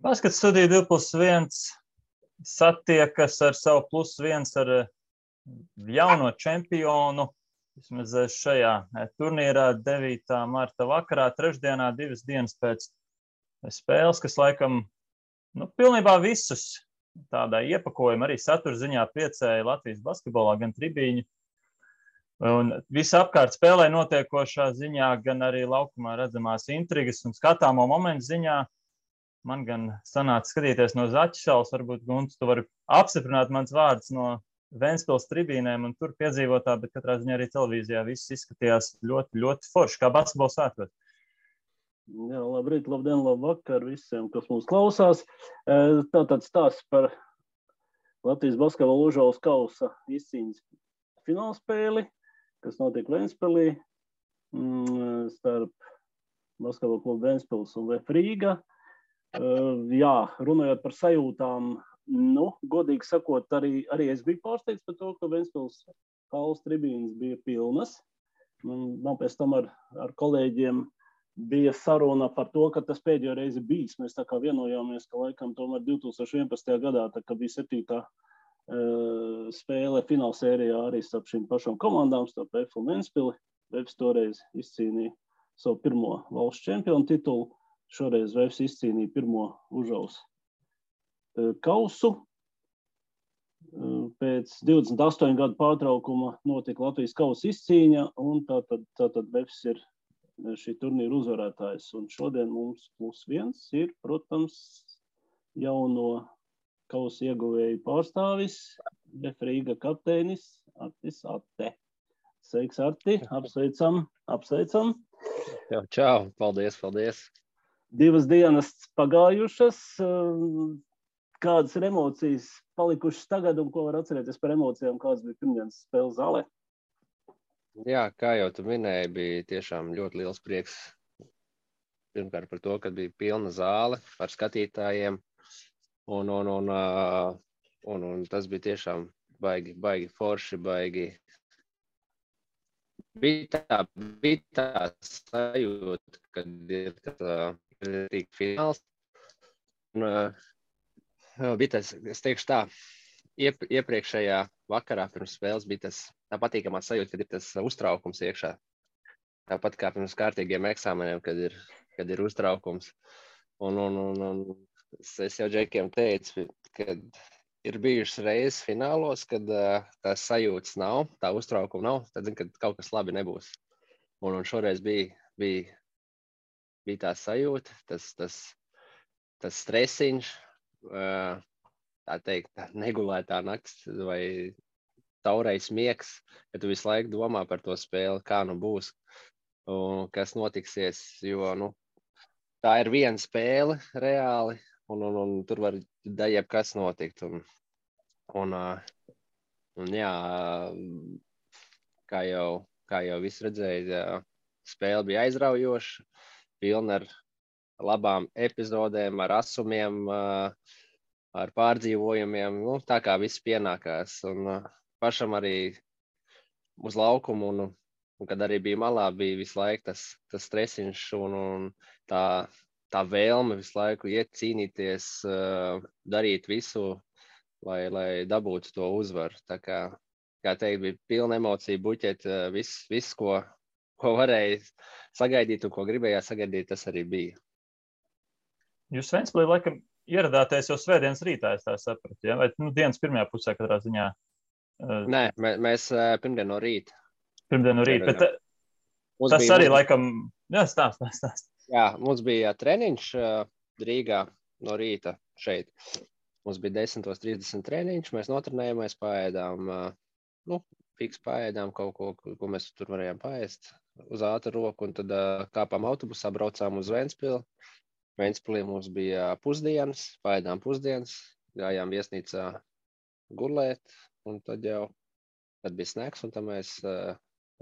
Baskets studija 2+1 satiekas ar savu +1 ar jauno čempionu. Vismaz šajā turnīrā 9. marta vakarā, trešdienā, 2 dienas pēc spēles, kas laikam pilnībā visus tādā iepakojuma arī satura ziņā priecēja Latvijas basketbolā, gan tribīņu. Un visapkārt spēlē notiekošā ziņā, gan arī laukumā redzamās intrigas un skatāmo momentu ziņā. Man gan sanāca skatīties no Zaķisalas, varbūt, Gunts, tu vari apstiprināt mans vārds no Ventspils tribīnēm un tur piedzīvotā, bet katrā ziņā arī televīzijā viss izskatījās ļoti, ļoti forši, kā basketbols svētkos. Jā, labrīt, labdien, labvakar visiem, kas mūs klausās. Tātad stāsts par Latvijas basketbola Užaules kausa izcīņas finālspēli, kas notiek Ventspilī starp basketbola klubu Ventspils un VF Rīga. Jā, runājot par sajūtām, godīgi sakot, arī es biju pārsteigts par to, ka Ventspils kausa tribīnes bija pilnas. Man pēc tam ar kolēģiem bija saruna par to, ka tas pēdējo reizi bijis. Mēs tā kā vienojāmies, ka laikam tomēr 2011. gadā, tā kā bija 7. spēle finālsērijā arī starp šīm pašām komandām, starp VF un Ventspili. VF toreiz izcīnīja savu pirmo valsts čempionu titulu. Šoreiz VF izcīnīja pirmo Užaules kausu. Pēc 28 gadu pārtraukuma notika Latvijas kausa izcīņa, un tātad VF ir šī turnīra uzvarētājs. Un šodien mums +1 ir, protams, jauno kausa ieguvēju pārstāvis, VF Rīga kapteinis Artis Atte. Sveiks, Arti, apsveicam. Čau, paldies. 2 dienas pagājušas. Kādas ir emocijas palikušas tagad un ko var atcerēties par emocijām, kādas bija pirmdienas spēles zālē? Jā, kā jau tu minēji, bija tiešām ļoti liels prieks. Pirmkārt par to, ka bija pilna zāle ar skatītājiem. Un tas bija tiešām baigi forši, baigi. Bija tā sajūta, kad ir fināls. Bija tas, es teikšu tā, iepriekšējā vakarā pirms spēles bija tā patīkamā sajūta, kad ir tas uztraukums iekšā. Tāpat kā pirms kārtīgiem eksāmeniem, kad ir uztraukums. Un es jau džekiem teicu, kad ir bijušas reizes finālos, kad tās sajūtas nav, tā uztraukuma nav, tad zinu, ka kaut kas labi nebūs. Un šoreiz bija tā sajūta, tas stresiņš, tā teikt, negulētā nakts vai taurais miegs, ka tu visu laiku domā par to spēli, kā būs un kas notiksies, jo tā ir viena spēle reāli un tur var jebkas notikt. Un jā, kā jau viss redzēja, spēle bija aizraujoša, pilna ar labām epizodēm, ar asumiem, ar pārdzīvojumiem, tā kā viss pienākās. Un pašam arī uz laukumu, un kad arī bija malā, bija visu laiku tas stresiņš un tā vēlme visu laiku iet cīnīties, darīt visu, lai dabūtu to uzvaru. Tā kā teikt, bija pilna emocija buķet, viss, ko varēja sagaidīt un ko gribējāt sagaidīt, tas arī bija. Jūs Ventspilī laikam ieradāties jau svētdienas rītā, es tā sapratu, ja? Vai dienas pirmajā pusē katrā ziņā? Nē, mēs pirmdien no rīta. Pirmdien no rīta, bet tas arī laikam, jā, stāst. Jā, mums bija treniņš Rīgā no rīta šeit. Mums bija 10:30 treniņš, mēs notrenējāmies, paēdām, fiks paēdām kaut ko mēs tur varējām paēst uz ātru roku, un tad kāpām autobusā, braucām uz Ventspili. Ventspilī mums bija pusdienas, paēdām pusdienas, gājām viesnīcā gulēt, un tad bija snacks, un tad mēs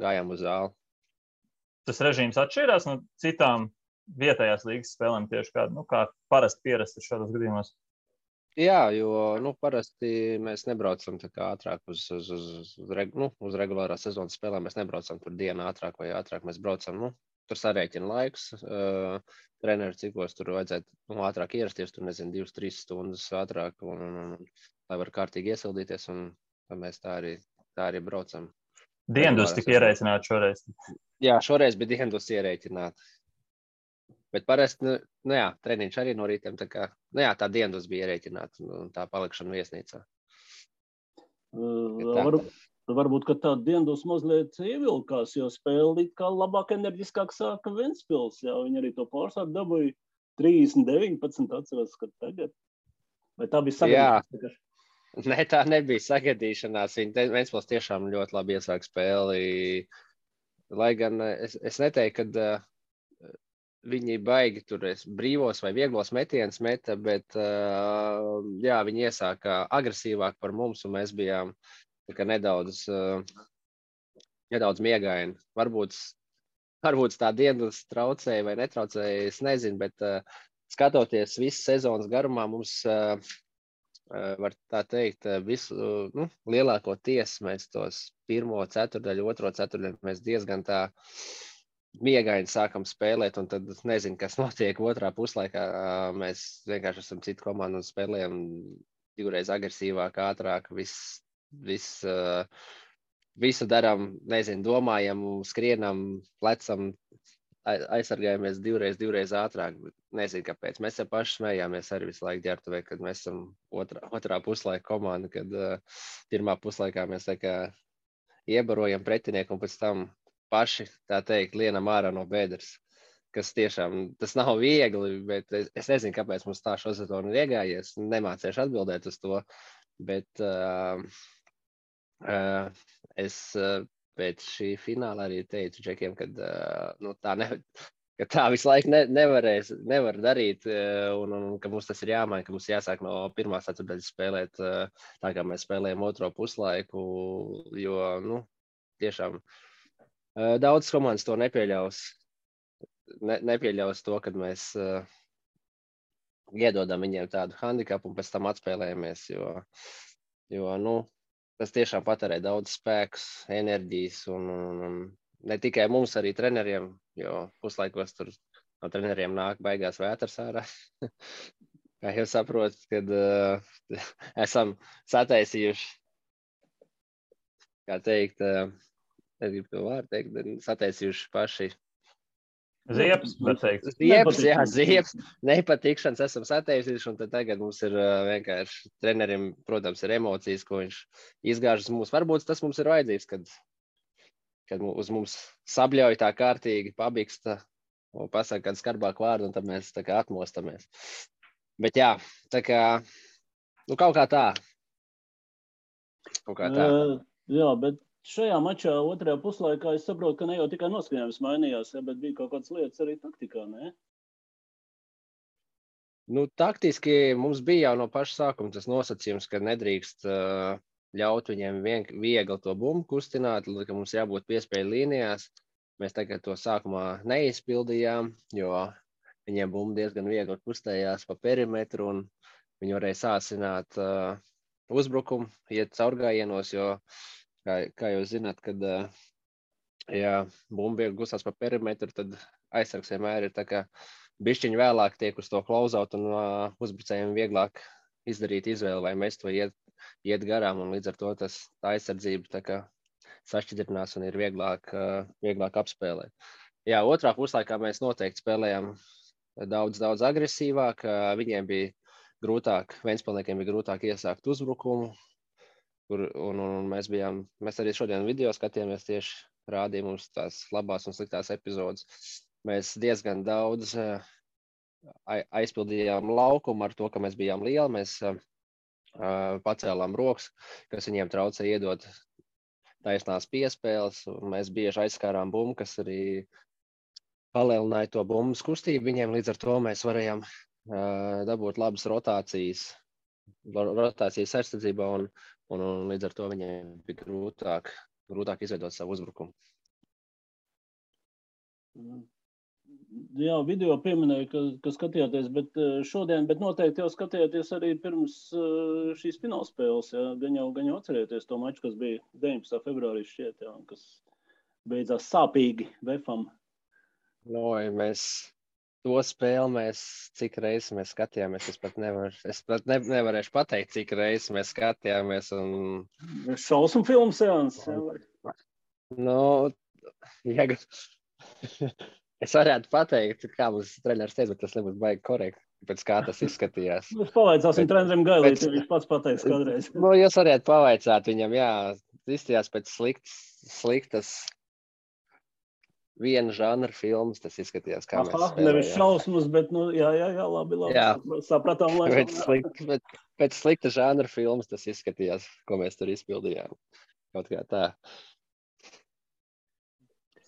gājām uz zāli. Tas režīms atšķirās no citām vietējās līgas spēlēm tieši kā parasti pierasti šādos gadījumos? Jā, jo parasti mēs nebraucam tā kā ātrāk uz regulārā sezonas spēlēm, mēs nebraucam tur dienu ātrāk vai ātrāk, mēs braucam tur sarēķina laiks. Treneru cikos tur vajadzētu ātrāk ierasties, tur nezinu, 2-3 stundas ātrāk, un lai var kārtīgi iesildīties, un mēs tā arī braucam. Diendus tika ierēķināti šoreiz. Jā, šoreiz bija Diendus ierēķināti. Bet parasti, jā, treniņš arī no rītiem, tā kā, tā Diendus bija ierēķināta, un tā palikšana viesnīcā. Varbūt, ka tā Diendus mazliet ievilkās, jo spēle kā labāk enerģiskāk sāka Ventspils, jā, viņi arī to pārsāku dabūja 30-19, atceros, ka tagad. Vai tā bija sagadīšanās? Nē, tā nebija sagadīšanās, Ventspils tiešām ļoti labi iesāk spēli, lai gan es neteiktu, kad viņi baigi tur brīvos vai vieglos metienus meta, bet jā, viņi iesāka agresīvāk par mums, un mēs bijām nedaudz miegaini. Varbūt tā Diendus traucēja vai netraucēja, es nezinu, bet skatoties visu sezonas garumā, mums, var tā teikt, visu lielākoties mēs tos pirmo ceturdaļu, otro ceturdaļu mēs diezgan tā miegaini sākam spēlēt, un tad nezinu, kas notiek otrā puslaikā. Mēs vienkārši esam citu komandu un spēlējam divreiz agresīvāk, ātrāk, visu darām, nezinu, domājam, skrienam, plecam, aizsargājamies divreiz ātrāk. Nezinu, kāpēc. Mēs jau paši smējāmies arī visu laiku ģērbtuvē, kad mēs esam otrā puslaika komanda, kad pirmā puslaikā mēs tā kā iebarojam pretinieku un pēc tam paši, tā teikt, lienam ārā no bedres. Kas tiešām, tas nav viegli, bet es nezinu, kāpēc mums tā šo sezonu ir iegājies. Nemācīšu atbildēt uz to, bet es pēc šī fināla arī teicu Džekiem, ka tā visu laiku nevar darīt, un ka mums tas ir jāmaina, ka mums jāsāk no pirmās ceturtdaļas spēlēt tā, kā mēs spēlējam otro puslaiku, jo, tiešām daudz komandas to nepieļaus. Nepieļaus to, kad mēs iedodam viņiem tādu handikapu un pēc tam atspēlējamies, jo tas tiešām patērē daudz spēkus, enerģijas un ne tikai mums, arī treneriem, jo puslaikos tur no treneriem nāk baigās vētras ārā. Kā jau saprotat, kad esam sataisījuši, kā teikt, negribu to vārdu teikt, bet sataisījuši paši. Ziepes, var teikt. Ziepes, nepatikšanas esam sataisījuši, un tad tagad mums ir vienkārši trenerim, protams, ir emocijas, ko viņš izgāžas mums. Varbūt tas mums ir vajadzīgs, kad uz mums sabļauj tā kārtīgi, pabiksta un pasaka kādu skarbāku vārdu, un tad mēs tā kā atmostamies. Bet jā, tā kā, kaut kā tā. Jā, bet šajā mačā otrajā puslaikā es saprotu, ka ne jau tikai noskaņojums mainījās, bet bija kaut kādas lietas arī taktikā, ne? Taktiski mums bija jau no paša sākuma tas nosacījums, ka nedrīkst ļaut viņiem viegli to bumbu kustināt, ka mums jābūt piespēju līnijās. Mēs tagad to sākumā neizpildījām, jo viņiem bumba diezgan viegli kustējās pa perimetru, un viņi varēja sāsināt uzbrukumu, iet caurgājienos, jo kā jūs zināt, kad bumba viegli gustās pa perimetru, tad aizsargs vienmēr ir tā kā bišķiņi vēlāk tiek uz to klauzaut, un uzbrucējiem vieglāk izdarīt izvēli, vai mēs to iet garām, un līdz ar to tā aizsardzība tā kā sašķidrinās un ir vieglāk apspēlēt. Jā, otrā puslaikā mēs noteikti spēlējām daudz agresīvāk, viņiem bija grūtāk, Ventspilniekiem bija grūtāk iesākt uzbrukumu, un mēs arī šodien video skatījāmies, tieši rādīja mums tās labās un sliktās epizodes. Mēs diezgan daudz aizpildījām laukumu ar to, ka mēs bijām lieli, mēs pacēlām rokas, kas viņiem traucēja iedot taisnās piespēles, un mēs bieži aizskārām bumbu, kas arī palielināja to bumbas kustību viņiem, līdz ar to mēs varējām dabūt labas rotācijas aizsardzībā, un līdz ar to viņiem bija grūtāk izveidot savu uzbrukumu. Jā, video pieminēja, ka skatījāties, bet noteikti jau skatījāties arī pirms šīs finālspēles, jā, gan jau atcerieties to maču, kas bija 19. februārī šķiet, jā, kas beidzās sāpīgi Vefam. Mēs to spēli cik reizes mēs skatījāmies, es pat nevarēšu pateikt, cik reizes mēs skatījāmies. Šausmu filmu seanses. Es varētu pateikt, kā mums treneris teica, bet tas nebūs baigi korekti, pēc kā tas izskatījās. Mēs pavaicāsim trenerim Gailīti, viņš pats pateiks kādreiz. Jūs varētu pavaicāt viņam, jā, izstījās pēc sliktas viena žanra filmas, tas izskatījās, kā mēs spēlējām. Nevis šausmas, bet, jā, labi, jā. Sapratām. Pēc slikta žanra filmas tas izskatījās, ko mēs tur izpildījām. Kaut kā tā.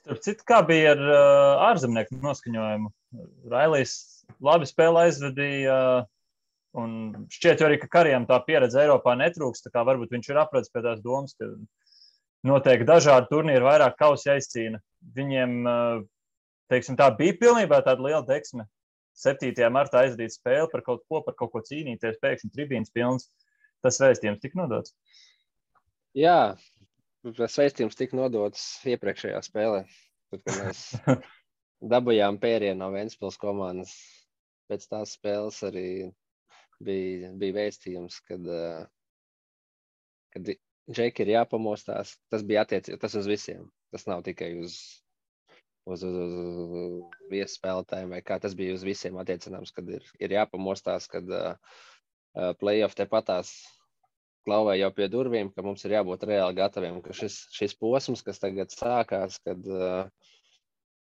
Starp citu, kā bija ar ārzemnieku noskaņojumu? Railijs labi spēli aizvedīja, un šķiet arī, ka Karijam tā pieredze Eiropā netrūks, tā kā varbūt viņš ir apradis pie tās domas, ka noteikti dažādi turnīri vairāk kausi aizcīna. Viņiem, teiksim, tā bija pilnībā tāda liela deksme. 7. martā aizvadīt spēli par kaut ko cīnīties, pēkšņi tribīnas pilns. Tas vēstījums tika nodots? Jā, tas vēstījums tika nodots iepriekšējā spēlē. Tad, kad mēs dabujām pērienu no Ventspils komandas, pēc tās spēles arī bija vēstījums, kad Džeki ir jāpamostās. Tas bija tas uz visiem. Tas nav tikai uz viesspēlētājiem vai kā. Tas bija uz visiem attiecināms, kad ir jāpamostās, kad play-off tepatās klauvē jau pie durvīm, ka mums ir jābūt reāli gataviem, ka šis posms, kas tagad sākās, kad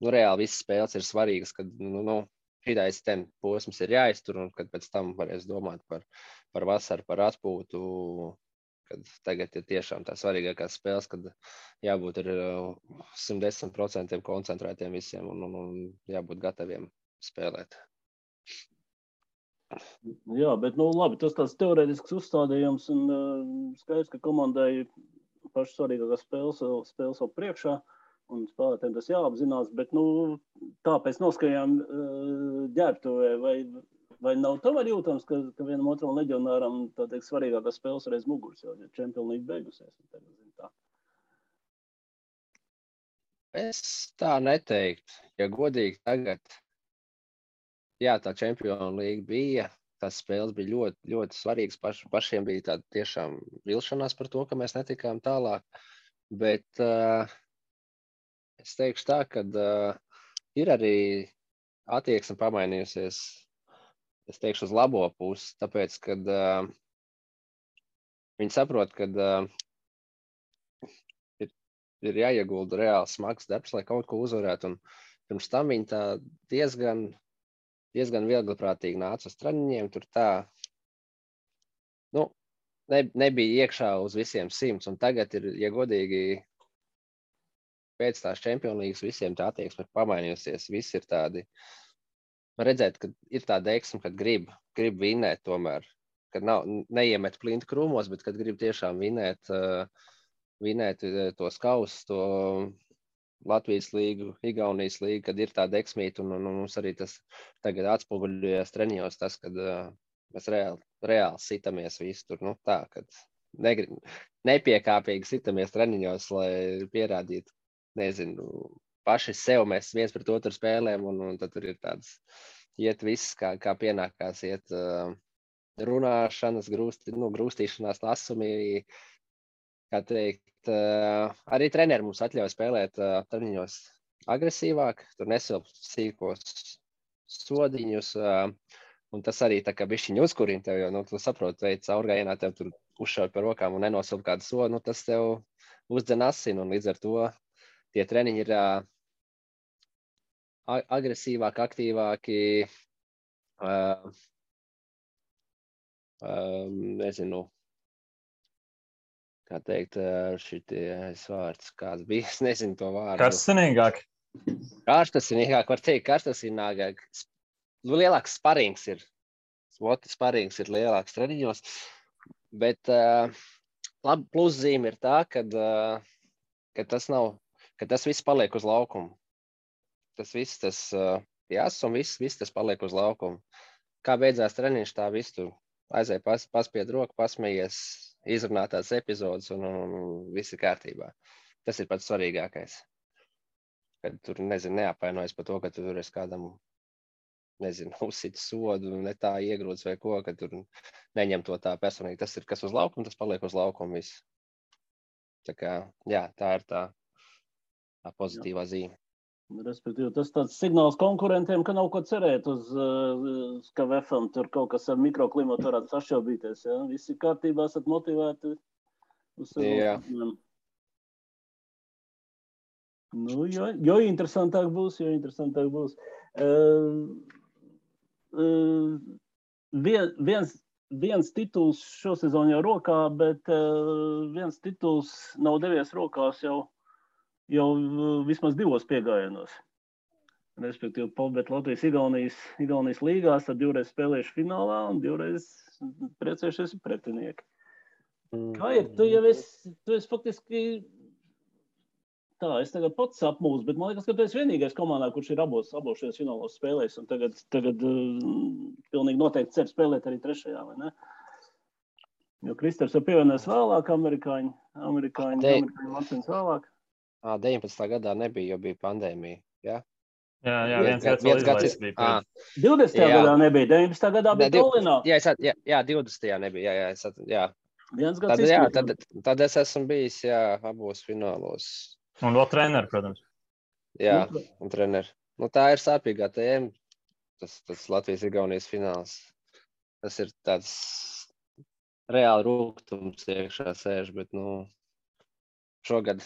reāli visas spēles ir svarīgas, kad šitais posms ir jāiztur un kad pēc tam varēs domāt par vasaru, par atpūtu, kad tagad ir tiešām tā svarīgākās spēles, kad jābūt ar 110% koncentrētiem visiem un jābūt gataviem spēlēt. Jā, bet labi, tas tāds teorētisks uzstādījums un skaidrs, ka komandai pašas svarīgākās spēles vēl priekšā un spēlētēm tas jāapzinās, bet tāpēc noskaņām ģērbtuvē vai nav tomēr jūtams, ka vienam otram leģionāram tā teikt svarīgākās spēles reiz muguras, jo Champions League beigusies. Tā. Es tā neteiktu. Ja godīgi tagad, jā, tā Champions League bija, tās spēles bija ļoti, ļoti svarīgas. Pašiem bija tāda tiešām vilšanās par to, ka mēs netikām tālāk. Bet es teikšu tā, ka ir arī attieksme pamainījusies. Es teikšu uz labo pusi, tāpēc, kad viņi saprot, ka ir jāiegulda reāli smags darbs, lai kaut ko uzvarētu. Un pirms tam viņi tā diezgan viegliprātīgi nāca uz treniņiem. Tur tā nebija iekšā uz visiem 100. Un tagad ir, ja godīgi, pēc tās Champions Leagues visiem tā attieksme ir pamainījusies. Visi ir tādi. Redzēt, ka ir tā deksme, kad grib vinēt tomēr, kad neiemet plinti krūmos, bet kad grib tiešām vinēt tos kausus, to Latvijas līgu, Igaunijas līgu, kad ir tā deksmīta un mums arī tas tagad atspoguļojas treniņos, tas, kad mēs reāli sitamies visu tur, tā, kad nepiekāpīgi sitamies treniņos, lai pierādītu, nezinu, paši sev mēs viens pret otru spēlēm, un tad tur ir tāds, iet viss, kā pienākās, iet runāšanas, grūstīšanās lasumi, kā teikt, arī treneri mums atļauj spēlēt treniņos agresīvāk, tur nesilp sīkos sodiņus, un tas arī tā kā bišķiņ uzkurina tev, jo, tu saproti, veids caurgājienā tev tur uzšauj par rokām un nenosilp kādu sodu, tas tev uzdzen asinu, un līdz ar to tie treniņi ir agresīvāki, aktīvāki, nezinu, kā teikt, šities vārds, kāds bija, es nezinu to vārdu. Karstasinīgāk. Karstasinīgāk, var teikt, karstasinīgāk. Lielāks sparings ir. Sparings ir lielāks treniņos, bet pluszīme ir tā, ka tas viss paliek uz laukumu. Tas viss, un viss tas paliek uz laukumu. Kā beidzās treniņš, tā viss tu aizēj paspied roku, pasmējies, izrunātās epizodes un viss ir kārtībā. Tas ir pats svarīgākais. kad tur, nezinu, neapvainojas par to, ka tur es kādam, nezinu, uzsit sodu, ne tā iegrūts vai ko, ka tur neņem to tā personīgi. Tas ir, kas uz laukuma, tas paliek uz laukuma viss. Tā kā, jā, tā ir tā pozitīvā zīme. Respektīvi, tas tāds signāls konkurentiem, ka nav ko cerēt uz KVF-am, tur kaut kas ar mikroklimatu varētu sašķelbīties, ja? Visi kārtībā esat motivēti uz sezonu. Nu, jo interesantāk būs. Viens tituls šosezon jau rokā, bet viens tituls nav devies rokās jau vismaz 2 piegājienos. Respektīvi, bet Latvijas-Igaunijas līgās tad 2 spēlējuši finālā un 2 priecējušies pretinieki. Kā ir? Tu esi faktiski... Tā, es tagad pats apmūstu, bet man liekas, ka tu esi vienīgais komandā, kurš ir abos šajos finālos spēlējis, un tagad pilnīgi noteikti cer spēlēt arī 3. vai ne? Jo Kristers jau pievienojas vēlāk, amerikāņi Latvijas vēlāk. 19. gadā nebija, jo bija pandēmija, jā? Jā, viens gads vēl izlaists bija. 20. gadā nebija, 19. gadā bija Tallinā. Jā, 20. nebija, jā. Viens gads izskatīt. Tad es esmu bijis, abos finālos. Un vēl treneri, protams. Jā, un treneri. Nu, tā ir sāpīgā tēma, tas Latvijas-Igaunijas fināls. Tas ir tāds reāli rūgtums iekšā sēž, bet, šogad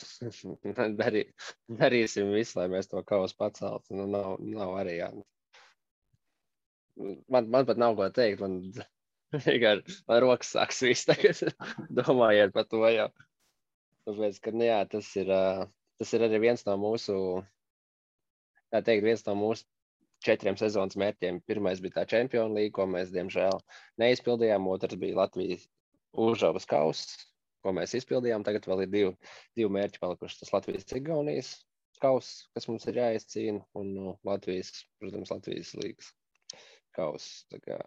darīsim visu, lai mēs to kausu paceltu. Nav arī, jā. Man pat nav ko teikt, man rokas sāks viss tagad, domājiet par to jau. Tāpēc, ka, jā, tas ir arī viens no mūsu, viens no mūsu 4 sezonas mērķiem. Pirmais bija tā Čempionu līga, ko mēs, diemžēl, neizpildījām. Otrs bija Latvijas Užavas kauss, ko mēs izpildījām. Tagad vēl ir 2 mērķi palikuši. Tas Latvijas-Igaunijas kauss, kas mums ir jāizcīna, un Latvijas līgas kauss. Tā kā,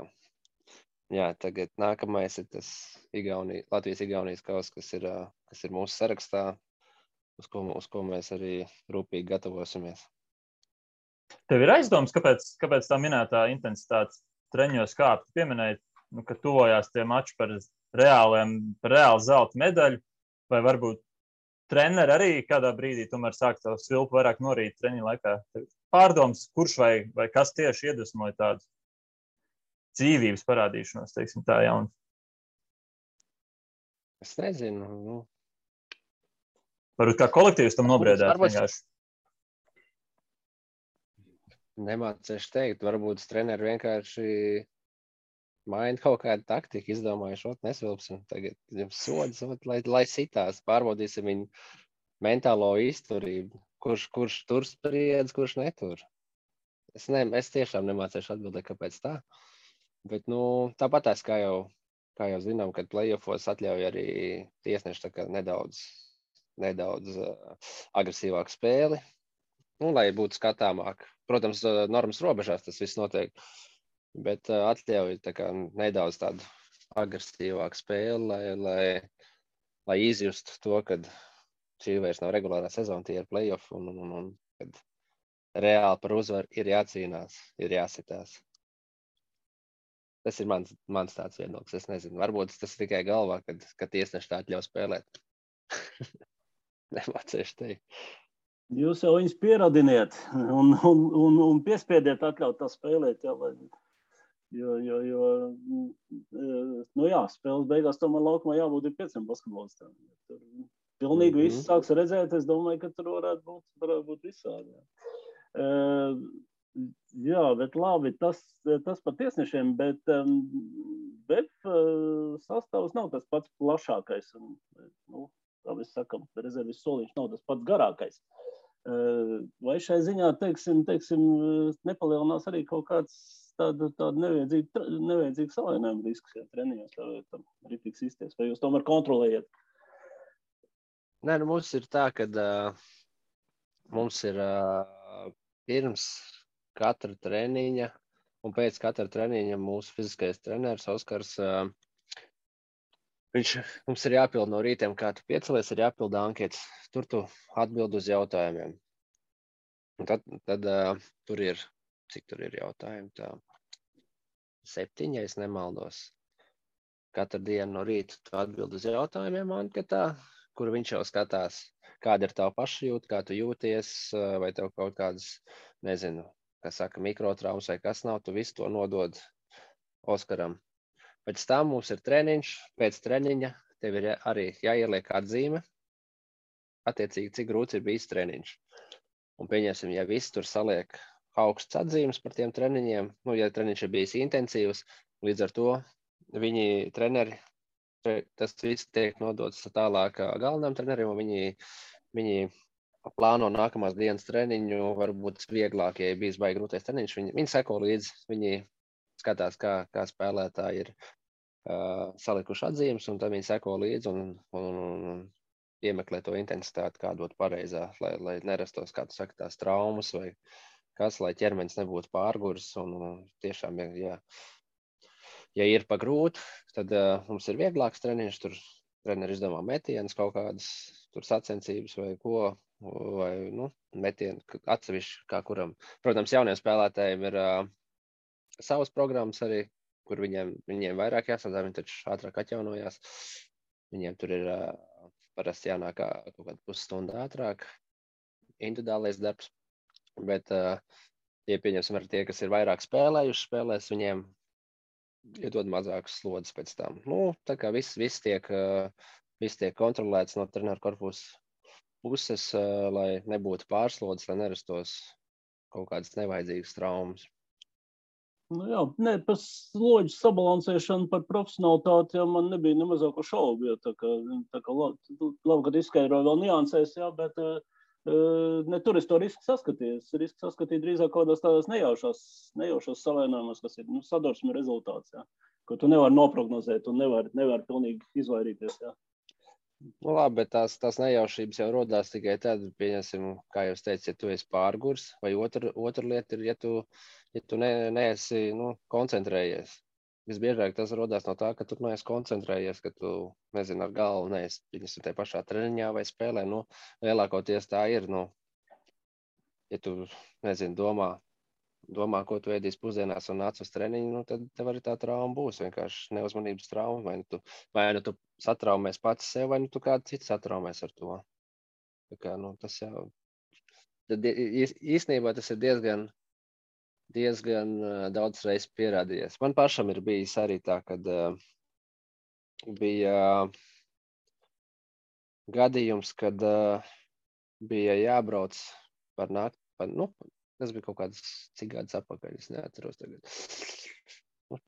jā, tagad nākamais ir tas Latvijas-Igaunijas kauss, kas ir mūsu sarakstā, uz ko mēs arī rūpīgi gatavosimies. Tev ir aizdoms, kāpēc tā minētā intensitātes treņos kāp? Tu pieminēji, ka tuvojās tie mači par reālu zelta medaļu, vai varbūt treneri arī kādā brīdī tomēr sāk to svilpu vairāk norīt treņu laikā. Pārdoms, kurš vai kas tieši iedvesmoja tādu dzīvības parādīšanos, teiksim tā jaunu? Es nezinu. Varbūt kā kolektīvs tam nobriedāt vienkārši. Nemācēšu teikt, varbūt treneri vienkārši maina kaut kādu taktiku, izdomājuši, nesvilpsim tagad sodas, lai sitās, pārbaudīsim viņu mentālo izturību, kurš tur spriedz, kurš netur. Es tiešām nemācēšu atbildēt, kāpēc tā, bet, tāpatās, kā jau zinām, kad playoffos atļauj arī tiesneši tā kā nedaudz agresīvāku spēli, lai būtu skatāmāk. Protams, normas robežās tas viss notiek, bet atļauj tā kā nedaudz tādu agresīvāku spēli, lai izjustu to, kad šī vairs nav regulārā sezona, tie ir playoff, un kad reāli par uzvaru ir jācīnās, ir jāsitās. Tas ir mans tāds viedoklis, es nezinu. Varbūt tas tikai galvā, kad tiesneši tā atļauj spēlēt. Nemācēšu teikt. Jūs jau viņus pieradiniet un piespiediet atļaut tā spēlēt, jo spēles beigās tomēr laukumā jābūt 5 basketbolistiem. Pilnīgi viss sāks redzēt, es domāju, ka tur varētu būt visādi. Jā, bet labi, tas par tiesnešiem, bet sastāvs nav tas pats plašākais. Kā mēs sakam, rezervis soliņš nav tas pats garākais. Vai šai ziņā, teiksim, nepalielinās arī kaut kāds tāda nevajadzīga savainājuma risks, ja treniņos tam rītīgs izties, vai jūs tomēr kontrolējat? Nē, mums ir tā, ka mums ir pirms katra treniņa un pēc katra treniņa mūsu fiziskais treneris Oskars, mums ir jāpild no rītiem, kā tu piecelies, ir jāpilda anketas. Tur tu atbild uz jautājumiem. Un tad tur ir, cik tur ir jautājumi, tā 7, ja es nemaldos. Katru dienu no rīta tu atbild uz jautājumiem anketā, kur viņš jau skatās, kāda ir tava pašjūta, kā tu jūties, vai tev kaut kādas, nezinu, kā saka, mikrotraumas vai kas nav, tu visu to nodod Oskaram. Pēc tam mums ir treniņš, pēc treniņa tev ir arī jāieliek atzīme, attiecīgi, cik grūts ir bijis treniņš. Un pieņemsim, ja visi tur saliek augsts atzīmes par tiem treniņiem, ja treniņš ir bijis intensīvs, līdz ar to viņi treneri, tas viss tiek nodots tālāk galvenam trenerim, un viņi plāno nākamās dienas treniņu, varbūt vieglāk, ja bijis baigi grūtais treniņš, viņi seko līdzi, viņi skatās, kā spēlētāji ir salikuši atzīmes, un tad viņi seko līdzi un iemeklē to intensitāti, kā dot pareizā, lai nerastos, kā tu saki, tās traumas vai kas, lai ķermenis nebūtu pārguris. Un tiešām, ja ir pa grūti, tad mums ir vieglāks treniņš, tur treneri izdomā metienas kaut kādas, tur sacensības vai ko, vai, metienu atsevišķi kā kuram. Protams, jauniem spēlētājiem ir savas programmas arī, kur viņiem vairāk jāsadā, viņi taču ātrāk atjaunojās. Viņiem tur ir parasti jānāk kaut kādu pusstundu ātrāk, individuālais darbs, bet, ja pieņemsim ar tie, kas ir vairāk spēlējuši spēlēs, viņiem iedod mazākas slodzes pēc tam. Tā kā viss tiek kontrolēts no treneru korpusa puses, lai nebūtu pārslodzes, lai nerastos kaut kādas nevajadzīgas traumas. Par slodžu sabalansēšanu, par profesionalitāti, man nebija nemazāko šaubu, jo tā kā labi, kad izskaidroju vēl niansēs, bet ne tur es to risku saskatīju. Risku saskatīju drīzāk kādās tādās nejaušos salēnājumos, kas ir sadursme rezultāts, ko tu nevari noprognozēt un nevari pilnīgi izvairīties. Labi, bet tās nejaušības jau rodās tikai tad, pieņemsim, kā jūs teicat, ja tu esi pārgurs, vai otra lieta ir, ja tu neesi koncentrējies. Visbiežāk tas rodās no tā, ka tu neesi koncentrējies, ka tu, nezinu, ar galvu neesi, pieņemsim, tajā pašā treniņā vai spēlē. Lielākoties tā ir, ja tu, nezinu, domā, ko tu ēdīsi pusdienās un nāc uz treniņu, tad tev arī tā trauma būs, vienkārši neuzmanības trauma, vai nu tu satraumēs pats sev, vai nu tu kādu citu satraumēs ar to. Tā kā, tas jau, tad īstenībā tas ir diezgan daudz reizes pierādījies. Man pašam ir bijis arī tā, kad bija gadījums, kad bija jābrauc par nakti, tas bija kaut kāds cik gadus atpakaļ, es neatceros tagad.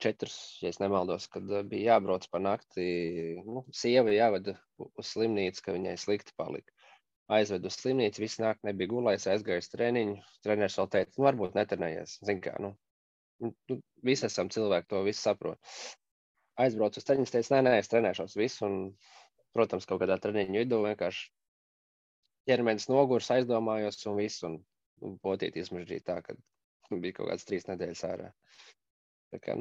4, ja es nemaldos, kad bija jābrauc par nakti, sieva jāveda uz slimnīcu, ka viņai slikti palika. Aizvedu uz slimnīcu, visu nakti nebija gulējis, aizgājis treniņu. Treneris vēl teica, varbūt netrenējies. Zin kā, visi esam cilvēki, to visu saprot. Aizbraucu uz treniņu, teica, nē, es trenēšos visu. Un, protams, kaut kādā treniņu vidū vienkārši ķermenis nogurs, aizdomājos un visu. Un potīt izmežģīt tā, kad bija kaut kāds 3 nedēļas ārā. Tā kā,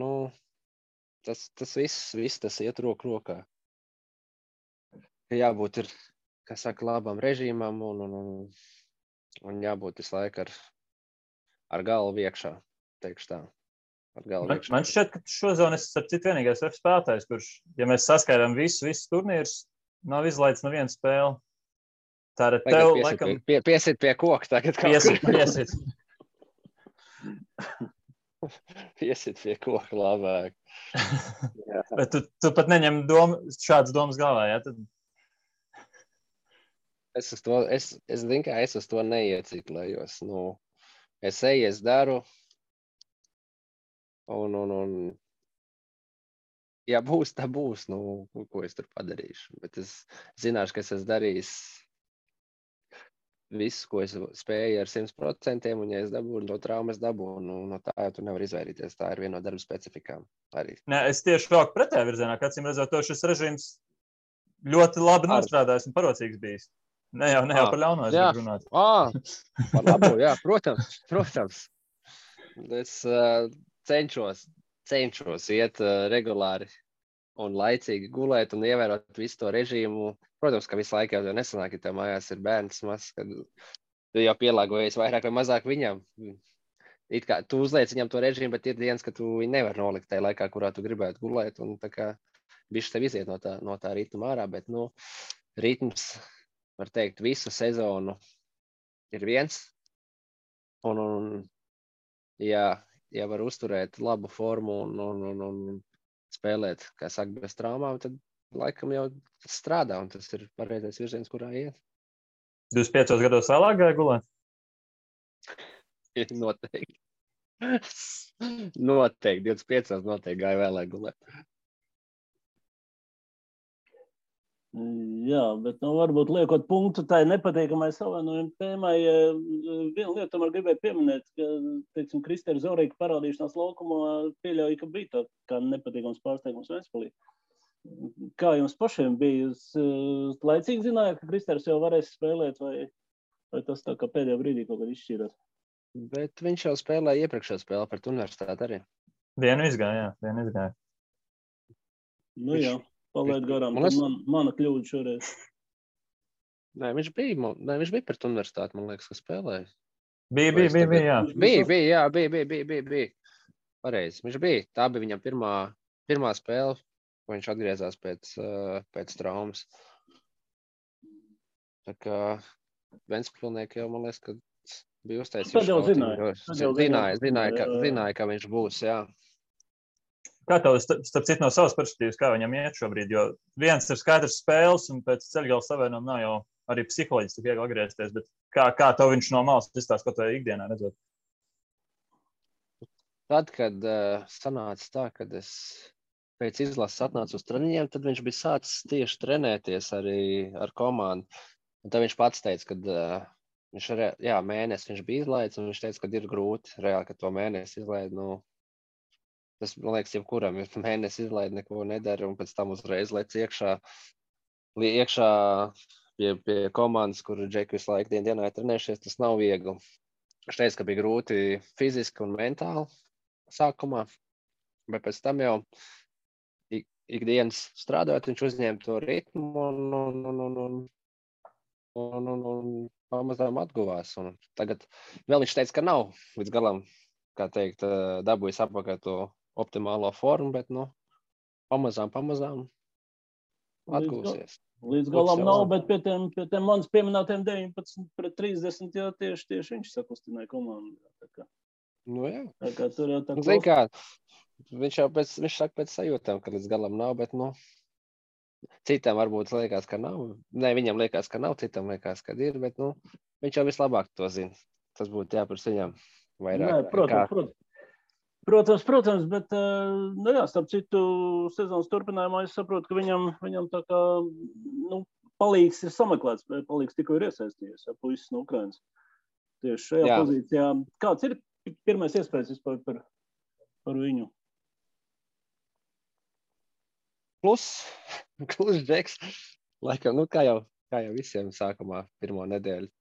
tas viss tas iet roku rokā. Ka jābūt ir, kā saka, labam režīmam un jābūt visu laiku ar galvu iekšā, teikšu tā. Man šķiet, ka šozon es ar citu vienīgais spēlētājs, kurš, ja mēs saskaidām visus turnīrus, nav izlaists nevienu spēli. Tā ir tev, laikam... Piesit pie koka tagad. Piesit. Piesit pie koka labāk. Bet tu pat neņem šādas domas galvā, jā? Tad... Es uz to neieciklējos. Es eju, es daru. Un ja būs, tā būs. Ko es tur padarīšu. Bet es zināšu, ka es esmu darījis visu, ko es spēju ar 100%, un ja es dabūnu no traumas, no tā jau tu nevar izvairīties. Tā ir viena no darba specifikām arī. Nē, es tieši vēl pretējā virzienā, ka acīm redzot, šis režīms ļoti labi nostrādājis un parocīgs bijis. Ne jau par ļauno es gribu runāt. Par labo, jā, protams. Es cenšos iet regulāri un laicīgi gulēt un ievērot visu to režīmu. Protams, ka visu laiku jau nesanāk, ja tev mājās ir bērns mazs, kad tu jau pielāgojies vairāk vai mazāk viņam. It kā tu uzliec viņam to režīmu, bet ir dienas, ka tu viņu nevar nolikt tajā laikā, kurā tu gribētu gulēt, un tā kā bišķi tev iziet no tā ritma ārā, bet, nu, ritms, var teikt, visu sezonu ir viens, un ja var uzturēt labu formu un spēlēt, kā saka, bez traumām, tad laikam jau strādā, un tas ir pareizais virziens, kurā iet. 25 gados vēlāk gāja gulēt? Noteikti. Noteikti, 25 noteikti gāja vēlāk gulēt. Jā, bet varbūt liekot punktu tai nepatīkamai savainojuma tēmai, vienu lietu tomēr gribēju pieminēt, ka, teiksim, Kristēra Zorīka parādīšanās laukumā pieļauja, ka bija tā kā nepatīkams pārsteigums Ventspilī. Kā jums pašiem bija? Jūs laicīgi zinājāt, ka Kristērs jau varēs spēlēt, vai tas tā kā pēdējā brīdī kaut kad izšķīrās? Bet viņš jau spēlēja iepriekšējā spēlē pret universitāti arī. Vienu izgāja. Nu jā. Palaid garām, tad mana kļūda šoreiz. Nē, viņš bija pret universitāti, man liekas, ka spēlēja. Bija, jā. Bija. Pareizi, viņš bija. Tā bija viņam pirmā spēle, ko viņš atgriezās pēc traumas. Tā kā Ventspilnieki jau, man liekas, ka bija uztaisījuši. Tad jau zināja, ka viņš būs, jā. Kā tev, starp citu, no savas perspektīvas, kā viņam iet šobrīd? Jo viens ir skaidrs spēles, un pēc ceļgala savienojuma nav jau arī psiholoģiski tik viegli atgriezties, bet kā tev viņš no malas izstāsta, ko tev ikdienā redzot? Tad, kad sanāca tā, kad es pēc izlases atnācu uz treniņiem, tad viņš bija sācis tieši trenēties arī ar komandu. Un tad viņš pats teica, ka mēnesi viņš bija izlaidis, un viņš teica, ka ir grūti reāli, ka to mēnesi izlaid, tas, man liekas, jebkuram, ja mēnesi izlaid, neko nedara, un pēc tam uzreiz lec iekšā pie komandas, kur Džeki visu laiku dienā ir trenējušies, tas nav viegli. Viņš teica, ka bija grūti fiziski un mentāli sākumā, bet pēc tam jau ikdienas strādājot, viņš uzņēma to ritmu un pamazām atguvās. Un tagad vēl viņš teica, ka nav līdz galam, kā teikt, dabūjis apakaļ to optimālo formu, bet, pamazām atgūsies. Līdz galam nav, bet pie tiem manis pieminētiem 19-30, jā, tieši viņš sakustināja komandu. Jā. Tā kā tur jau tā Zin kā, viņš saka pēc sajūtām, ka līdz galam nav, bet, citam varbūt liekas, ka nav. Nē, viņam liekas, ka nav, citam liekas, ka ir, bet, viņš jau vislabāk to zina. Tas būtu jāpars viņam vairāk. Nē, Protams, bet, starp citu, sezonas turpinājumā es saprotu, ka viņam tā kā, palīgs ir sameklēts, palīgs tikko ir iesaistījies, puisis no Ukrainas. Tieši šajā pozīcijā. Kāds ir pirmais iespējas vispār par viņu? Klus Džeks, laikam, kā jau visiem sākumā pirmo nedēļu.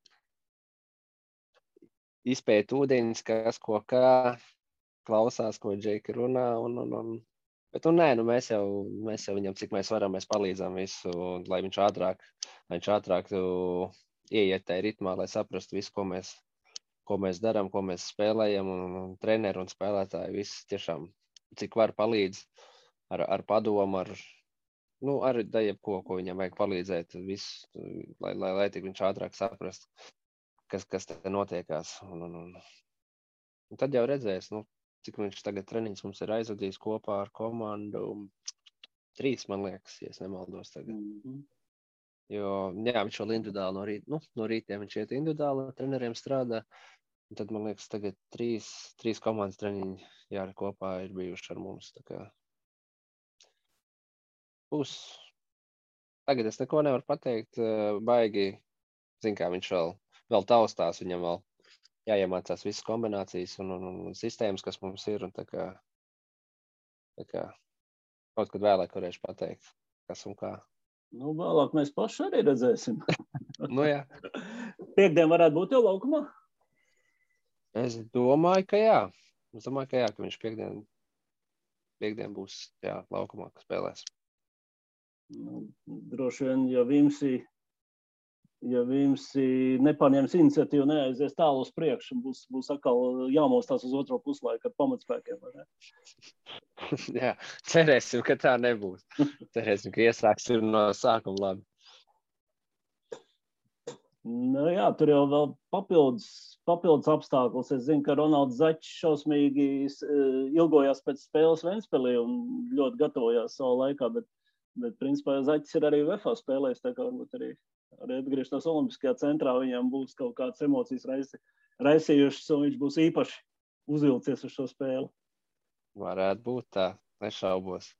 Izpēt ūdeņus, kas ko kā. Klausās, ko Džeki runā, bet, mēs jau viņam, cik mēs varam, mēs palīdzam visu, lai viņš ātrāk ieiet tajā ritmā, lai saprastu visu, ko mēs darām, ko mēs spēlējam, un treneri un spēlētāji visi tiešām, cik var palīdz ar padomu, ar jebko, ko viņam vajag palīdzēt, visu, lai tik viņš ātrāk saprast, kas te notiekās. Un tad jau redzēs, cik viņš tagad treniņus mums ir aizvadījis kopā ar komandu. 3, man liekas, ja es nemaldos tagad. Jo, viņš vēl individuāli no rītiem viņš iet individuāli, treneriem strādā. Un tad, man liekas, tagad 3 komandas treniņi kopā ir bijuši ar mums. Tā kā tagad es neko nevaru pateikt, baigi, kā viņš vēl taustās, viņam vēl jāiemācās visas kombinācijas un sistēmas, kas mums ir, un tā kā kaut kad vēlāk varēšu pateikt, kas un kā. Vēlāk mēs paši arī redzēsim. Jā. Piektdien varētu būt jau laukumā? Es domāju, ka jā. Ka viņš piektdien būs laukumā, ka spēlēs. Droši vien, ja Vimsī ja Vimsi nepaņems iniciatīvu, neaizies tālu uz priekšu, būs atkal jāmostās uz otro puslaiku ar pamatspēkiem. Vai ne? Jā, cerēsim, ka tā nebūs. Cerēsim, ka iesāksim no sākuma labi. Nu, jā, tur jau vēl papildus apstākļus. Es zinu, ka Ronalds Zaķis šausmīgi ilgojās pēc spēles Ventspilī un ļoti gatavojās savā laikā, bet principā Zaķis ir arī UEFA spēlējis, tā kā varbūt arī atgriežoties Olimpiskajā centrā, viņam būs kaut kādas emocijas raisījušas, un viņš būs īpaši uzvilcies uz šo spēli. Varētu būt tā, nešaubos.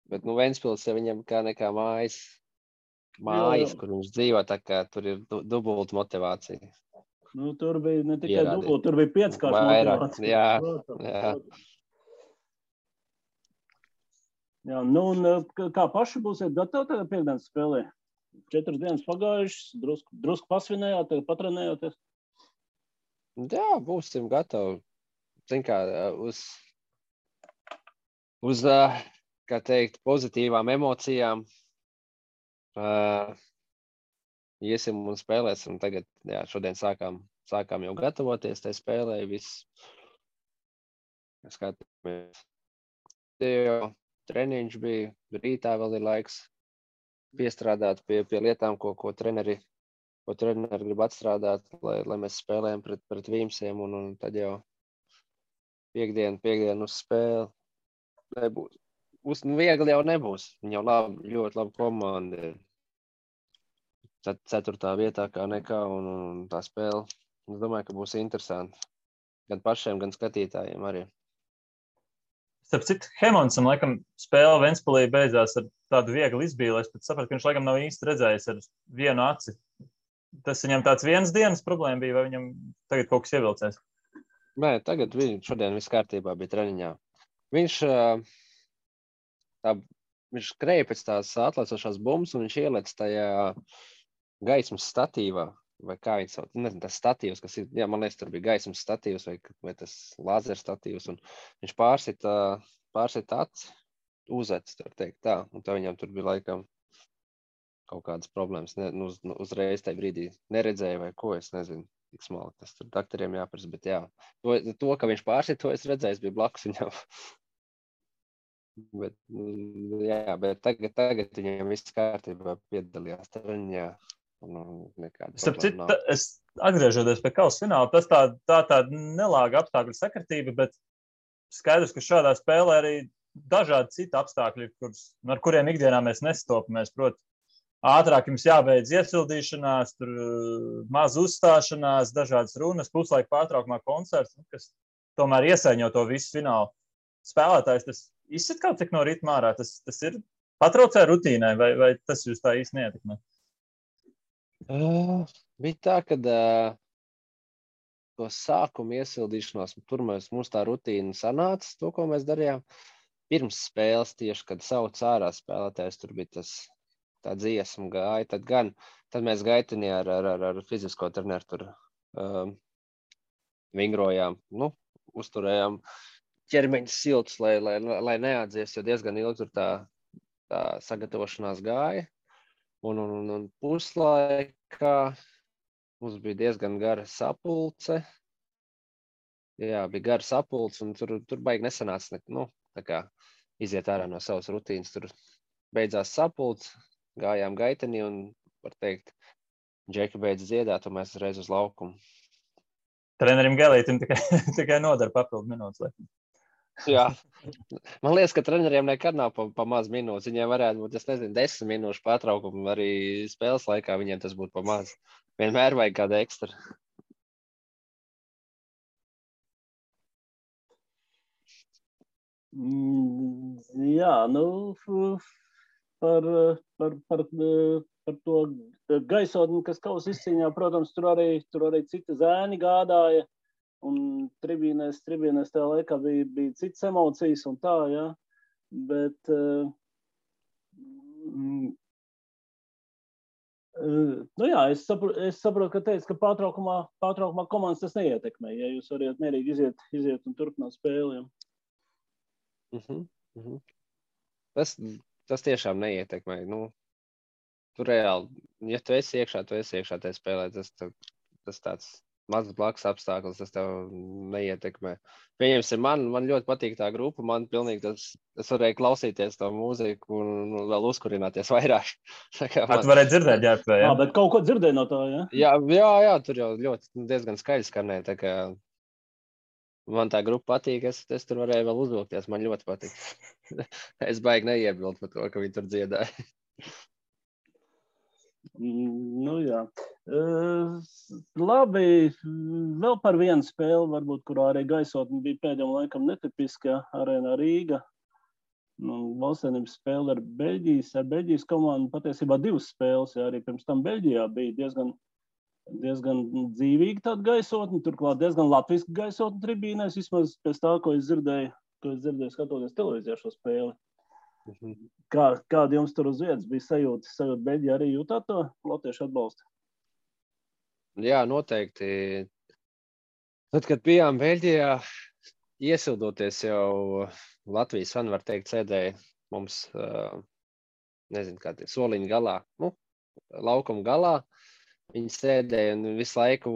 Bet, Ventspils, ja viņam kā nekā mājas, kur viņš dzīvo, tā kā tur ir dubulta motivācija. Tur bija ne tikai dubulta, tur bija 5-kārša motivācija. Jā. Jā, un kā paši būsiet gatavi tagad piekdienas spēlē? 4 dienas pagājušas, drusku pasvinējāt, tagad patrenējoties? Jā, būsim gatavi. Zin kā, uz kā teikt, pozitīvām emocijām. Iesim un spēlēsim. Tagad, jā, šodien sākām jau gatavoties tai spēlē. Viss. Skatāmies. Treniņš bija, rītā vēl ir laiks piestrādāt pie lietām, ko treneri grib atstrādāt, lai mēs spēlējam pret Vīmsiem, un tad jau piekdien uz spēli nebūs. Viegli jau nebūs. Viņa jau ļoti laba komanda. 4. vietā kā nekā, un tā spēle, es domāju, ka būs interesanti. Gan pašiem, gan skatītājiem arī. Starp citu, Hemonsam, laikam, spēle Ventspilī beidzās ar tādu vieglu izbīli. Es pat sapratu, ka viņš, laikam, nav īsti redzējis ar vienu aci. Tas viņam tāds vienas dienas problēma bija, vai viņam tagad kaut kas ievilcēs? Nē, tagad šodien viss kārtībā bija treniņā. Viņš skrēja pēc tās atlaicošās bumbas, un viņš ielec tajā gaismas statīvā, vai kā viņš sauc, nezinu, tas statīvs, kas ir, jā, man liekas, tur bija gaismas statīvs vai tas lāzer statīvs, un viņš pārsit aci, uzec, var teikt tā, un tā viņam tur bija laikam kaut kādas problēmas, uzreiz tajā brīdī neredzēja vai ko, es nezinu, tik smalki, tas tur doktoriem jāprasa, bet jā, to, ka viņš pārsit, to es redzēju, es biju blakus viņam. Bet tagad viņam viss kārtībā piedalījās treniņā. Es atgriežoties pie kausa fināla, tas tā nelāga apstākļu sakritība, bet skaidrs, ka šādā spēlē arī dažādi citi apstākļi, ar kuriem ikdienā mēs nestopamies. Proti, ātrāk jums jābeidz iesildīšanās, tur maz uzstāšanās, dažādas runas, puslaika pārtraukumā koncerts, kas tomēr iesaiņo to visu finālu. Spēlētājs tas izsit kaut cik no ritma ārā, tas ir patraucē rutīnai, vai tas jūs tā īsti neietekmē? Bija tā, ka to sākumu iesildīšanos, tur mums tā rutīna sanāca, to, ko mēs darījām. Pirms spēles tieši, kad sauc ārā spēlētājs, tur bija tā dziesma gāja, tad mēs gaitenī ar fizisko treneru tur vingrojām, uzturējām ķermeņa siltus, lai neatdzies, jo diezgan ilgi tur tā sagatavošanās gāja. Un puslaikā mums bija diezgan gara sapulce. Jā, bija gara sapulce, un tur baigi nesanāca, tā kā iziet ārā no savas rutīnas. Tur beidzās sapulce, gājām gaitenī, un, var teikt, Džeki beidz dziedāt, un mēs uzreiz uz laukumu. Trenerim Gelītim tikai nodara papildu minūtes. Jā, man liekas, ka treneriem nekad nav pa maz minūtes. Viņiem varētu būt, 10 minūšu pārtraukumu arī spēles laikā, viņiem tas būtu pa maz. Vienmēr vajag kāda ekstra. Jā, par to gaisotni, kas kausa izcīņā, protams, tur arī citi zēni gādāja. Un tribīnēs tajā laikā bija citas emocijas un tā, jā. Bet jā, es saprotu, ka teicu, ka pārtraukumā komandas tas neietekmē, ja jūs varat mierīgi iziet un turpināt spēli. Tas tiešām neietekmē. tur reāli, ja tu esi iekšā tajā spēlē, tas tāds mazs blakus apstākļus, tas tev neietekmē. Pieņemsim, man ļoti patīk tā grupa, man pilnīgi es varēju klausīties to mūziku un vēl uzkurināties vairāk. Tu varēji dzirdēt, ģērbtē, ja? Bet kaut ko dzirdēju no tā, ja? Jā, tur jau ļoti diezgan skaļi skanēja, tā kā man tā grupa patīk, es tur varēju vēl uzvilkties, man ļoti patīk. Es baigi neiebildu par to, ka viņi tur dziedāja. Nu, jā. Labi, vēl par vienu spēli, varbūt, kurā arī gaisotne bija pēdējiem laikam netipiska, Arēnā Rīga. Valstsvienības spēle ar Beļģijas komandu, patiesībā 2 spēles, ja arī pirms tam Beļģijā bija diezgan dzīvīga tāda gaisotne, turklāt diezgan latviska gaisotne tribīnēs, vismaz pēc tā, ko es dzirdēju skatoties televīzijā šo spēli. Kāda jums tur uz vietas bija sajūta Beļģijā arī jūtāt to latviešu atbalstu? Jā, noteikti. Tad, kad bijām Beļģijā, iesildoties jau Latvijas fani, var teikt, sēdēja mums, nezinu, kā tie soliņu galā, laukuma galā. Viņi sēdēja un visu laiku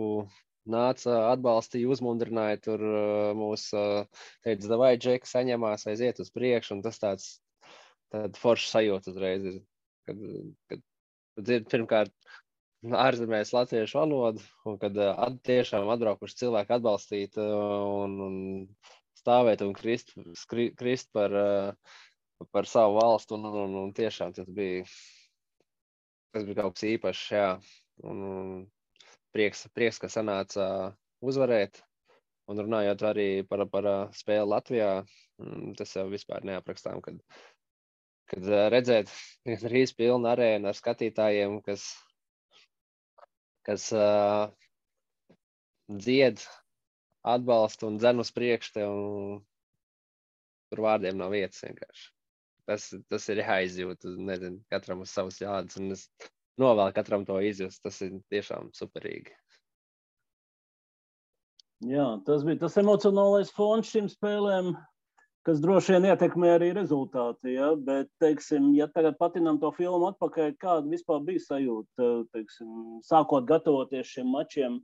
nāca, atbalstīja, uzmundrināja tur mūs, teica, davai, Džeki, saņemās, aiziet uz priekšu, un tas tāda forša sajūta uzreiz ir, kad dzird pirmkārt ārzemēs latviešu valodu, un kad tiešām atbraukuši cilvēki atbalstīt un stāvēt un krist par savu valstu, un tiešām tas bija kaut kas īpašs, jā, un prieks, ka sanāca uzvarēt, un runājot arī par spēli Latvijā, tas jau vispār neaprakstām, kad redzēt rīz pilnu arēnu ar skatītājiem, kas dzied, atbalsta un dzen uz priekšu tev, un tur vārdiem nav vietas vienkārši. Tas ir jāizjūt, nezinu, katram uz savas jādas, un es novēlu katram to izjust, tas ir tiešām superīgi. Jā, tas bija tas emocionālais fons šīm spēlēm, kas droši vien ietekmē arī rezultāti, ja? Bet, teiksim, ja tagad patinām to filmu atpakaļ, kāda vispār bija sajūta, teiksim, sākot gatavoties šiem mačiem,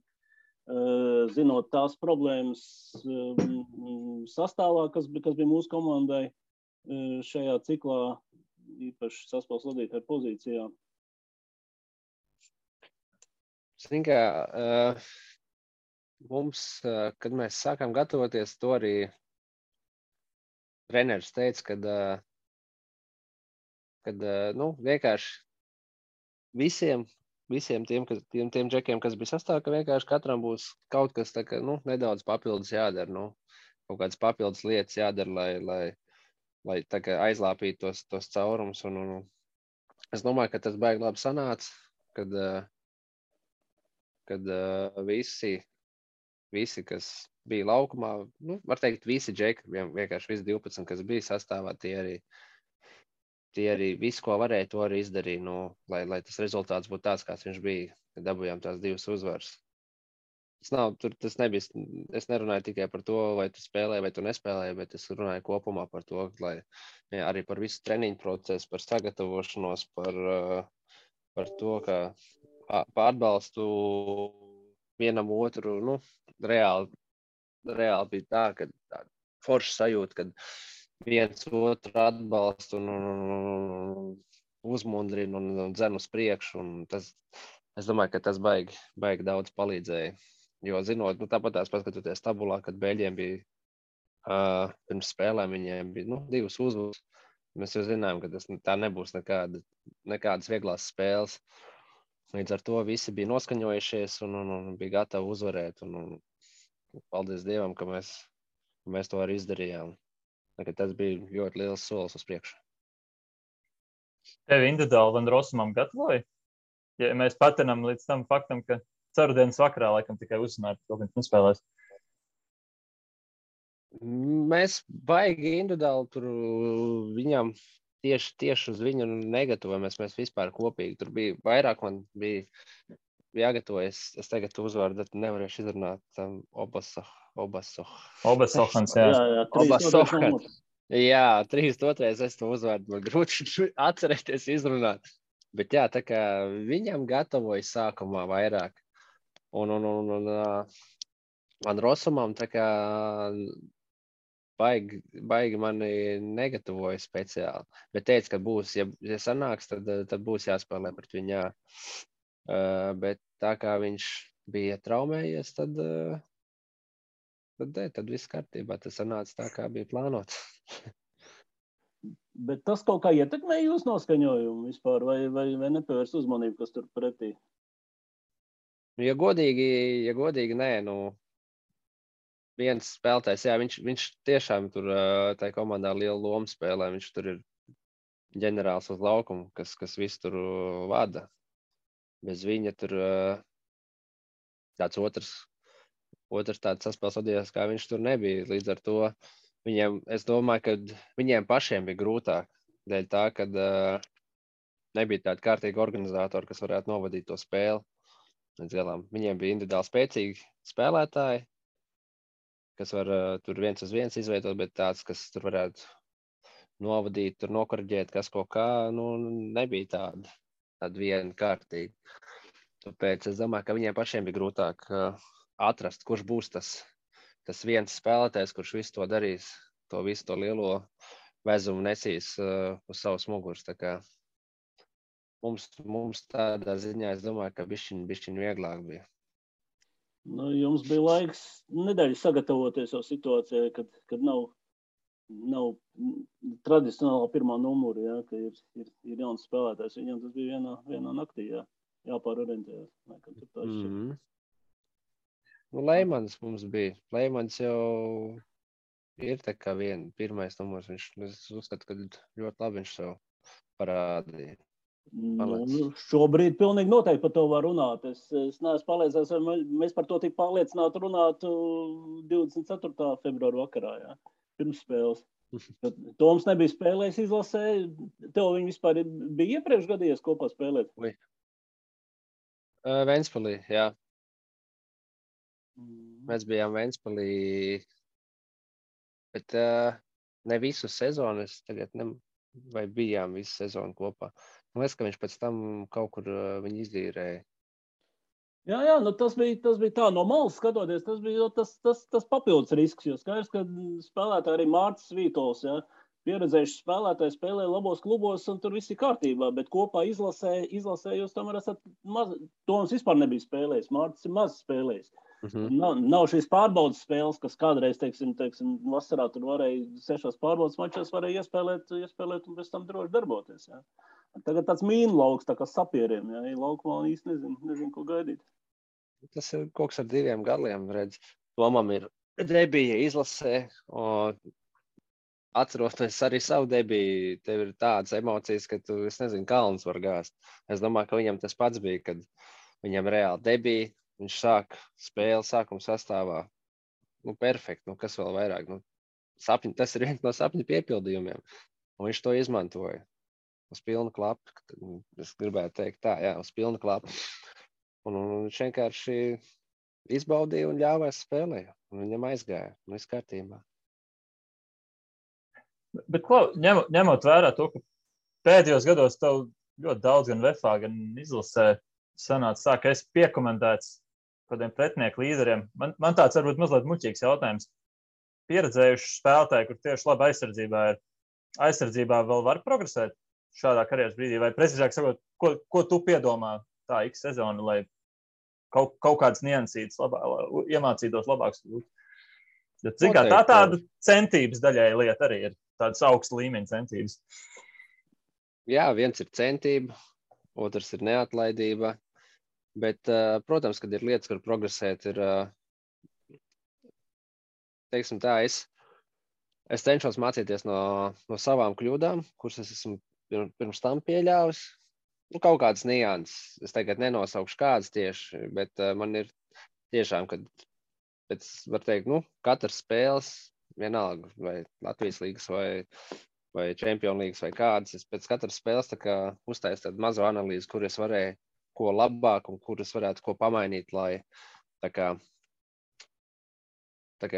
zinot tās problēmas sastāvā, kas bija mūsu komandai šajā ciklā, īpaši saspēles vadītāju pozīcijā? Zini, mums, kad mēs sākām gatavoties, to arī treneris teica, kad vienkārši visiem tiem džekiem, kas bija sastāvā, ka vienkārši katram būs kaut kas tā, ka, nedaudz papildus jādara, kaut kādas papildus lietas jādara, lai tā kā aizlāpītu tos caurumus. Un es domāju, ka tas baigi labi sanāca, kad visi, kas bija laukumā, var teikt, visi džeki, vienkārši visi 12, kas bija sastāvā, tie arī visu, ko varēja, to arī izdarīja, lai tas rezultāts būtu tāds, kāds viņš bija, kad dabūjām tās 2 uzvaras. Tas nebija, es nerunāju tikai par to, vai tu spēlēji, vai tu nespēlēji, bet es runāju kopumā par to, lai arī par visu treniņu procesu, par sagatavošanos, par to, ka par atbalstu vienam otru, reāli bija tā, ka forša sajūta, kad viens otru atbalstu un uzmundrina un dzen uz priekšu, un es domāju, ka tas baigi daudz palīdzēja. Jo zinot, tāpat tās paskatoties tabulā, kad Beļģiem bija pirms spēlēm, viņiem bija 2 uzvaras. Mēs jau zinājām, ka tā nebūs nekādas vieglās spēles. Līdz ar to visi bija noskaņojušies un bija gatavi uzvarēt. Un paldies Dievam, ka mēs to arī izdarījām. Tas bija ļoti liels solis uz priekšu. Tevi individuāli Van Rossumam gatavoja? Ja mēs patinām līdz tam faktam, ka ceturtdienas vakarā laikam tikai uzzināja, ka viņš nespēlēs. Mēs baigi individuāli tur viņam tieši uz viņu negatavojamies. Mēs vispār kopīgi. Tur bija vairāk, man bija jāgatavojas. Es tagad uzvārdu nevarēšu izrunāt Obasohans, jā. Obasohans. Jā, 3-2. Es to uzvārdu man grūti atcerēties izrunāt. Bet jā, tā kā viņam gatavoja sākumā vairāk. Un man Rosumam tā kā baigi mani negatavoja speciāli. Bet teica, ka būs, ja sanāks, tad būs jāspēlē pret viņu, jā. Bet tā kā viņš bija traumējies, tad viss kārtībā. Tas sanāca tā, kā bija plānots. Bet tas kaut kā ietekmē jūsu noskaņojumu vispār, vai nepievērs uzmanību, kas tur pretī? Ja godīgi, nē, viens spēlētājs, jā, viņš tiešām tur tai komandā lielu lomu spēlē. Viņš tur ir ģenerālis uz laukumu, kas visu tur vada. Bez viņa tur tāds otrs tāds saspēles vadījās, kā viņš tur nebija. Līdz ar to es domāju, ka viņiem pašiem bija grūtāk. Dēļ tā, ka nebija tāda kārtīga organizatora, kas varētu novadīt to spēli. Viņiem bija individuāli spēcīgi spēlētāji, kas var tur 1-uz-1 izveidot, bet tāds, kas tur varētu novadīt, tur nokorģēt, kas ko kā, nebija tāda viena kārtīga. Tāpēc es domāju, ka viņiem pašiem bija grūtāk atrast, kurš būs tas viens spēlētājs, kurš visu to darīs, visu to lielo vezumu nesīs uz savas muguras. Tā kā mums tādā ziņā, es domāju, ka bišķiņ vieglāk bija. Jums bija laiks nedēļu sagatavoties jau situācijai, kad nav tradicionāla pirmā numura, ja, ka ir jauns spēlētājs. Viņam tas bija vienā naktī, jāpārorientējās. Leimans mums bija. Leimans jau ir tā kā pirmais numurs. Es uzskatu, ka ļoti labi viņš sev parādīja. Šobrīd pilnīgi noteikti par to var runāt. Es neesmu pārliecināts, vai mēs par to tik pārliecināti runātu 24. februāra vakarā, jā, pirms spēles. Toms nebija spēlējis izlasē. Tev viņi vispār bija iepriekš gadījies kopā spēlēt? Ventspilī, jā. Mēs bijām Ventspilī, bet ne visu sezonu. Es tagad vai bijām visu sezonu kopā. Man liekas, ka viņš pēc tam kaut kur viņu izīrēja. Jā, tas bija tā no malas skatoties. Tas bija tas papildus risks, jo skaidrs, ka spēlētāji arī Mārcis Vītols, ja, pieredzējuši spēlētāji spēlē labos klubos un tur viss ir kārtībā, bet kopā izlasē jūs tomēr esat maz. Toms vispār nebija spēlējis, Mārcis ir maz spēlējis. Nav šīs pārbaudas spēles, kas kādreiz, teiksim, vasarā tur varēja 6 pārbaudas mačos varēja iespēlēt un pēc tam droši darboties. Ja. Tagad tāds mīnu lauks, tā kā sapieriem, ja, laukumā īsti nezinu, ko gaidīt. Tas ir kaut kas ar 2 gadiem, redz. Tomam ir debija izlasē, atceroties arī savu debiju, tev ir tādas emocijas, ka tu, es nezinu, kalns var gāzt. Es domāju, ka viņam tas pats bija, kad viņam reāli debija. Viņš sāk spēli sākuma sastāvā. Perfekti, kas vēl vairāk. Tas ir viens no sapņu piepildījumiem. Un viņš to izmantoja. Uz pilnu klapu. Es gribētu teikt tā, jā, uz pilnu klapu. Un viņš vienkārši izbaudīja un ļāvās spēlēja. Un viņam aizgāja. Un viss kārtībā. Bet ņemot vērā to, ka pēdējos gados tev ļoti daudz gan VFA, gan izlasē sanāca tā, ka esi piekomentēts kādiem pretinieku līderiem. Man tāds varbūt mazliet muļķīgs jautājums. Pieredzējuši spēlētāji, kur tieši labi aizsardzībā vēl var progresēt šādā karjeras brīdī, vai precīzāk sakot, ko tu piedomā tā X sezona, lai kaut kādas niansītas iemācītos labāks. Cik kā tāda centības daļai lieta arī ir, tādas augsta līmeņa centības. Jā, viens ir centība, otrs ir neatlaidība. Bet, protams, kad ir lietas, kur progresēt, ir, teiksim tā, es cenšos mācīties no savām kļūdām, kuras es esmu pirms tam pieļāvis. Kaut kādas nianses. Es tagad nenosaukšu kādas tieši, bet man ir tiešām, kad pēc, var teikt, katras spēles, vienalga, vai Latvijas līgas, vai Čempionu līgas, vai kādas, es pēc katras spēles tā kā uztaisu tādu mazo analīzi, kur es varēju ko labāk un kuras varētu ko pamainīt, lai tā kā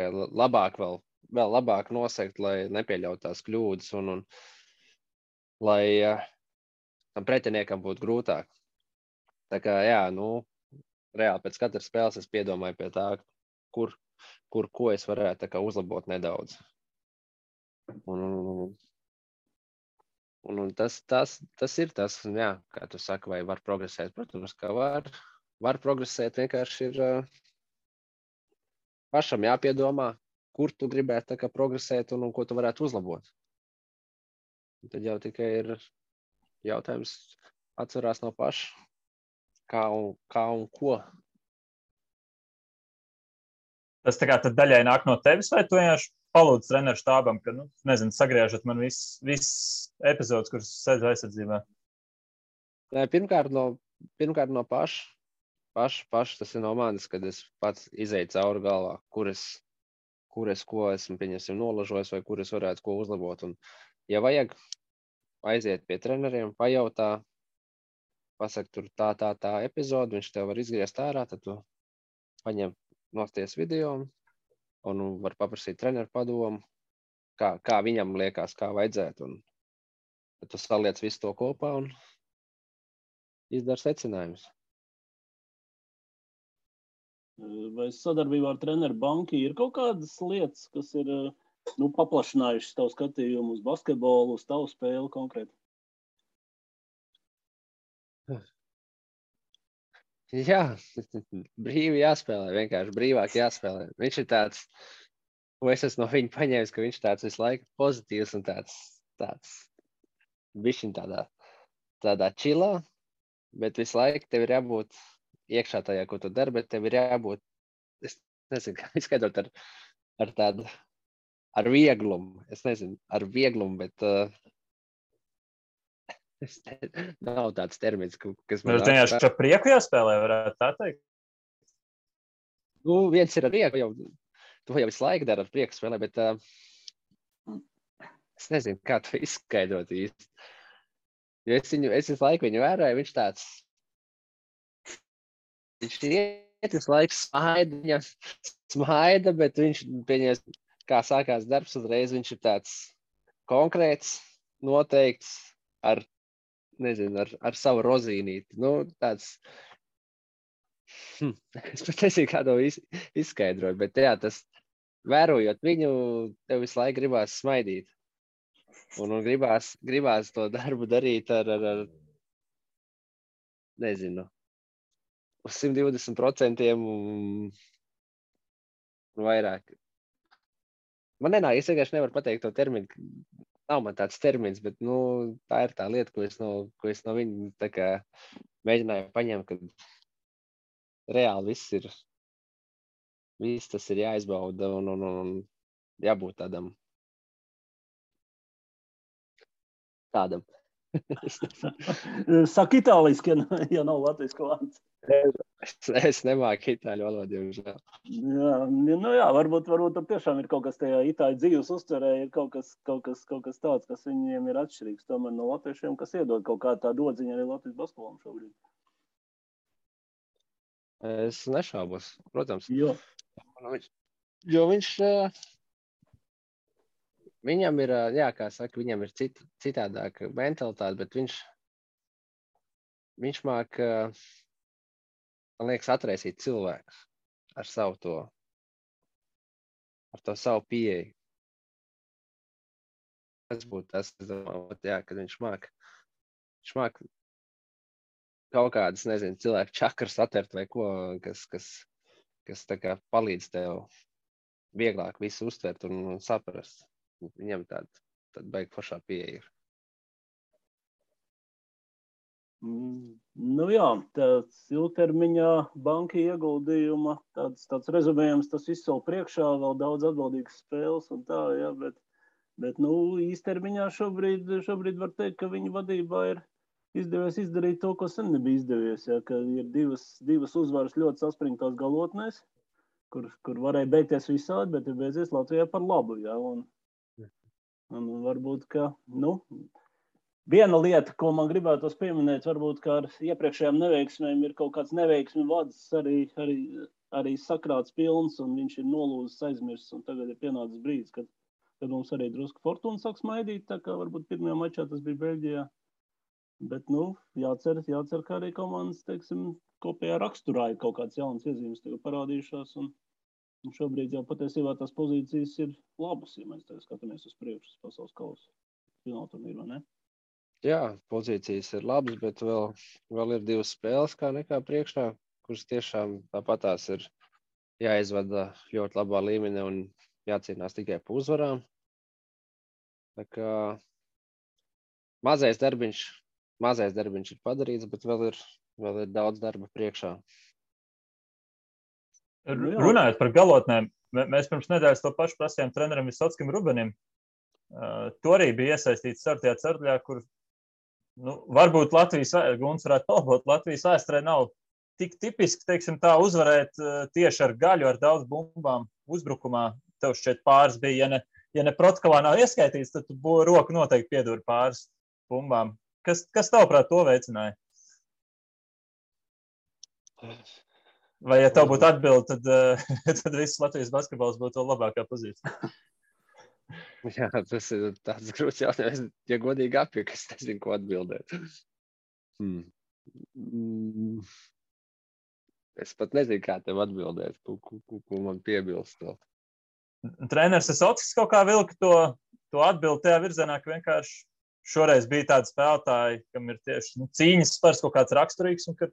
labāk vēl labāk nosegt, lai nepieļaut tās kļūdas un lai tam pretiniekam būtu grūtāk. Tā kā, jā, reāli pēc katras spēles es piedomāju pie tā, ko es varētu tā kā uzlabot nedaudz. Un tas ir tas, jā, kā tu saki, vai var progresēt. Protams, ka var progresēt, vienkārši ir pašam jāpiedomā, kur tu gribētu tā kā progresēt un ko tu varētu uzlabot. Un tad jau tikai ir jautājums atcerās no paša, kā un ko. Tas tā kā tad daļai nāk no tevis, vai tu vienkārši palūdz treneru štābam, ka, nezinu, sagriežat man viss epizodes, kuras sēdz aizsardzībā? Nē, pirmkārt no paša. Tas ir no manis, kad es pats izēju cauri galvā, kur es ko esmu, pieņemsim, nolažojis vai kur es varētu ko uzlabot. Un, ja vajag, aiziet pie treneriem, pajautā, pasaka tur tā epizode, viņš tev var izgriezt ārā, tad tu paņem nosties video un var paprasīt treneru padomu, kā viņam liekas, kā vajadzētu. Un tad tu saliec visu to kopā un izdara secinājumus. Vai sadarbībā ar treneru banki ir kaut kādas lietas, kas ir paplašinājušas tavu skatījumu uz basketbolu, uz tavu spēli konkrēti? Jā, brīvi jāspēlē, vienkārši brīvāk jāspēlē. Viņš ir tāds, ko es esmu no viņa paņēmis, ka viņš tāds visu laiku pozitīvs un tāds bišķiņ tādā čilā, bet visu laiku tev ir jābūt iekšā tajā, ko tu dari, bet tev ir jābūt, es nezinu, kā izskaidrot ar vieglumu. Es nezinu, ar vieglumu, bet nav tāds termins, kas man... Jūs vienkārši ar prieku jāspēlē, varētu tā teikt? Viens ir ar prieku, tu jau visu laiku dari ar prieku spēlē, bet es nezinu, kā to izskaidrot īsti. Jo es visu laiku viņu vēroju, viņš iet visu laiku smaida, bet viņš, pieņems, kā sākās darbs uzreiz, viņš ir tāds konkrēts, noteikts, ar savu rozīnīti. Tāds, es pat nezinu, kā to izskaidrot, bet jā, tas, vērojot viņu, tev visu laiku gribās smaidīt. Un gribās to darbu darīt ar nezinu, uz 120% un vairāk. Man nenāk, es vienkārši nevaru pateikt to terminu. Nav man tāds termins, bet tā ir tā lieta, ko es no viņa tā kā mēģināju paņemt, kad reāli viss tas ir jāizbauda un jābūt tādam. Saka itāliski, ja nav latviešu vārds. Es nemāku itāļu valodu, diemžēl. Jā, varbūt tur tiešām ir kaut kas tajā itāļu dzīves uztverē, ir kaut kas tāds, kas viņiem ir atšķirīgs tomēr no latviešiem, kas iedod kaut kā tādu odziņu arī Latvijas basketbolam šobrīd. Es nešaubos, protams. Jo viņš viņam ir, jā, kā saka, viņam ir citādāka mentalitāte, bet viņš māk, man liekas, atraisīt cilvēkus ar to savu pieeju. Tas būtu tas, es domāju, jā, kad viņš māk kaut kādas, nezinu, cilvēku čakras atvert vai ko, kas tā kā palīdz tev vieglāk visu uztvert un saprast. Viņam tāda baigi foršā pieeja ir. Jā, tāds ilgtermiņā banka ieguldījuma, tāds rezumējums, tas viss vēl priekšā, vēl daudz atbildīgas spēles un tā, jā, bet īstermiņā šobrīd var teikt, ka viņa vadībā ir izdevies izdarīt to, ko sen nebija izdevies, jā, ka ir divas uzvaras ļoti saspringtās galotnēs, kur varēja beigties visādi, bet ir beidzies Latvijā par labu, jā, un varbūt, ka, viena lieta, ko man gribētos pieminēt, varbūt, ka ar iepriekšējām neveiksmēm ir kaut kāds neveiksmi vads arī sakrāts pilns, un viņš ir nolūzis aizmirsts, un tagad ir pienācis brīdis, kad mums arī drusku fortuna sāk smaidīt, tā kā varbūt pirmajā mačā tas bija Beļģijā. Bet, jācer, ka arī komandas, teiksim, kopējā raksturā ir kaut kāds jauns iezīmes tev parādījušās, un šobrīd jau patiesībā tās pozīcijas ir labas, ja mēs tev skatāmies uz priekšu pasaules kausa fināla turnīru, vai ne? Jā, pozīcijas ir labas, bet vēl ir 2 spēles kā nekā priekšā, kuras tiešām tāpatās ir jāizvada ļoti labā līmenī un jācīnās tikai pa uzvarām. Tā kā mazais darbiņš ir padarīts, bet vēl ir daudz darba priekšā. Runājot par galotnēm, mēs pirms nedēļas to pašu prasījām trenerim Visockim Rubenim. To arī bija iesaistīts startajā ceturtajā, kur varbūt Guns varētu palabot, Latvijas vēsturē nav tik tipiski, teiksim tā, uzvarēt tieši ar gaļu, ar daudz bumbām uzbrukumā. Tev šķiet pāris bija, ja ne protokolā nav ieskaitīts, tad tu roku noteikti pieduri pāris bumbām. Kas tavuprāt to veicināja? Vai, ja tev būtu atbildi, tad viss Latvijas basketbols būtu labākā pozīcija? Jā, tas ir tāds grūts jautājums. Ja godīgi apjūk, es nezinu, ko atbildēt. Es pat nezinu, kā tev atbildēt, ko man piebilst. Treneris Visocks kaut kā vilka to atbildi tajā virzienā, ka vienkārši šoreiz bija tādi spēlētāji, kam ir tieši cīņas spars kaut kāds raksturīgs, un ka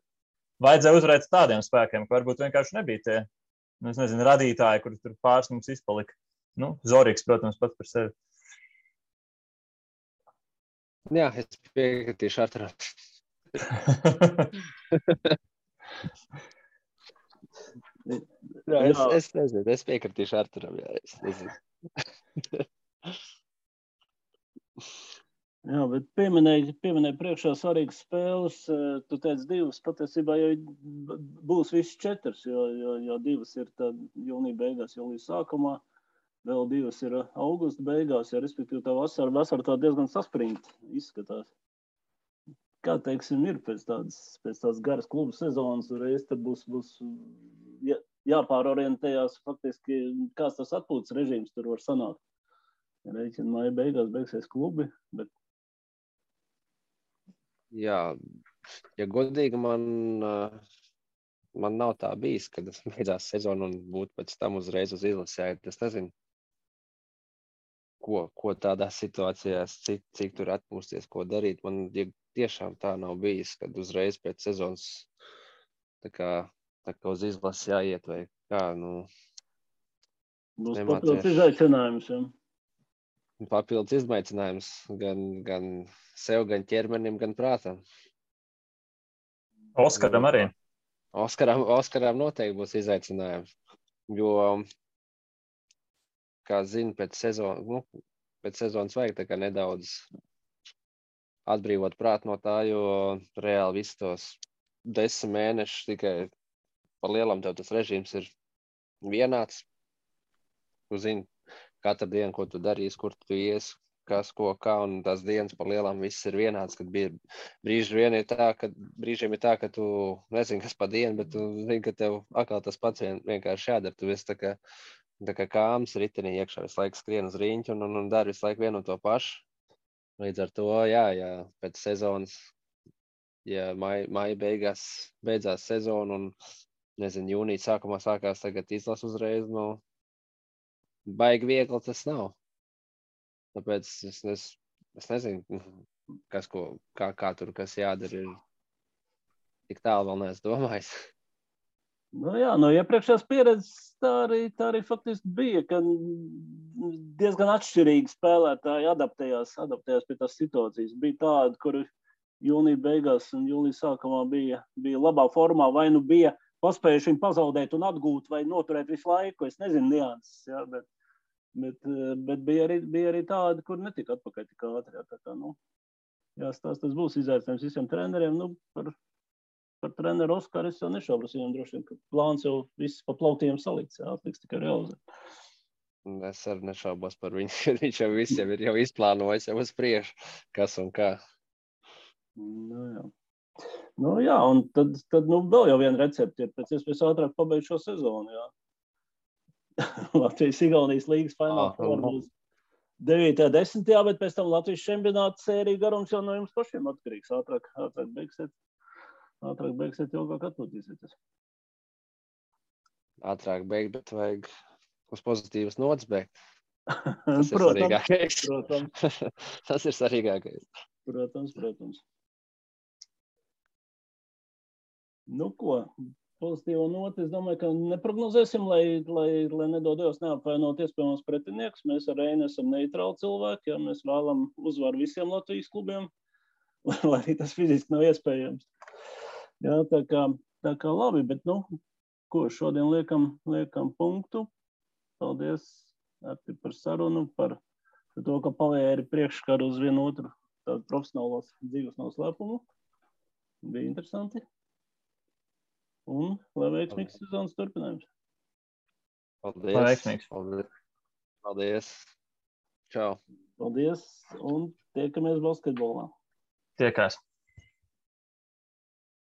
vajadzēja uzvarēt tādiem spēkiem, ka varbūt vienkārši nebija tie, es nezinu, radītāji, kuri tur pāris mums izpalika. Zorīgs, protams, pats par sevi. Jā, es piekritīšu Arturam. Es nezinu, es piekritīšu Arturam, jā, es nezinu. Jā, bet pieminēji priekšā svarīgas spēles, tu teici 2, patiesībā jau būs viss 4, jo 2 ir jūnija beigās, jūlijas sākumā. Vēl 2 ir augusta beigās, ja respektīvi tā vasara tā diezgan saspringta izskatās. Kā, teiksim, ir pēc tādas garas klubu sezonas, reiz tad būs jāpārorientējās faktiski, kāds tas atpūtas režīms tur var sanākt. Reiķina māja beigās beigsies klubi, bet... Jā, ja godīgi man nav tā bijis, kad beidzās sezona un būtu pēc tam uzreiz uz izlasi. Es nezinu, ko tādās situācijās, cik tur atpūsties, ko darīt. Man tiešām tā nav bijis, kad uzreiz pēc sezonas tā kā uz izlasi jāiet vai kā, Būs papildus izaicinājums, jā. Papildus izaicinājums gan sev, gan ķermenim, gan prātam. Oskaram arī. Oskaram noteikti būs izaicinājums, jo, kā zinu, pēc sezonas vajag tā kā nedaudz atbrīvot prātu no tā, jo reāli visus tos 10 mēnešus tikai pa lielam tev tas režīms ir vienāds. Tu zini katru dienu, ko tu darīsi, kur tu ies, kas, ko, kā, un tās dienas pa lielam viss ir vienāds, kad brīžiem ir tā, ka tu nezini, kas pa dienu, bet tu zini, ka tev atkal tas pats vienkārši jādara. Tu esi tā kā kāms ritenī iekšā, visu laiku skrien uz riņķi un dari visu laiku vienu un to pašu. Līdz ar to, jā, pēc sezonas, ja maija beidzās sezona un, nezinu, jūnija sākumā sākās tagad izlas uzreiz, baigi viegli tas nav. Tāpēc es nezinu, kā tur, kas jādara, ir tik tālu vēl neesmu domājis. Jā, no iepriekšējās pieredzes tā arī faktiski bija, ka diezgan atšķirīgi spēlētāji adaptējās pie tās situācijas. Bija tādi, kuri jūnija beigās un jūlijas sākumā bija labā formā, vai bija paspējuši viņu pazaudēt un atgūt vai noturēt visu laiku. Es nezinu nianses, jā, bet bija arī tādi, kur netika atpakaļ tik ātri. Tas būs izaicinājums visiem treneriem. Par treneru Oskaru es jau nešaubos, viņam droši vien, ka plāns jau viss pa plautiem salikts, atliks tikai realizēt. Es arī nešaubos par viņu, viņš jau visiem ir jau izplānojis, jau uz priekšu, kas un kā. Jā, un tad vēl jau viena recepte ir pēc iespējas ātrāk pabeigt šo sezonu, jā. Latvijas-Igaunijas līgas fināla 9. 10. Bet pēc tam Latvijas čempionāta sērija garums jau no jums pašiem atkarīgs. Ātrāk beigsiet, ilgāk atpūtīsieties. Ātrāk beigt, bet vajag uz pozitīvas nots beigt. Tas ir svarīgākais. Tas ir svarīgākais. Protams. Nu ko, pozitīvo noti, es domāju, ka neprognozēsim, lai nedodies neapvainot iespējamos pretinieks. Mēs ar Reini esam neitrāli cilvēki, ja mēs vēlam uzvaru visiem Latvijas klubiem, lai arī tas fiziski nav iespējams. Jā, tā kā labi, bet ko šodien liekam punktu. Paldies, Arti, par sarunu, par to, ka pavēri priekškaru uz vienu otru tādu profesionālos dzīves noslēpumu. Bija interesanti. Un lai veiksmīgs sezonas turpinājums. Paldies. Čau. Paldies un tiekamies basketbolā. Tiekās.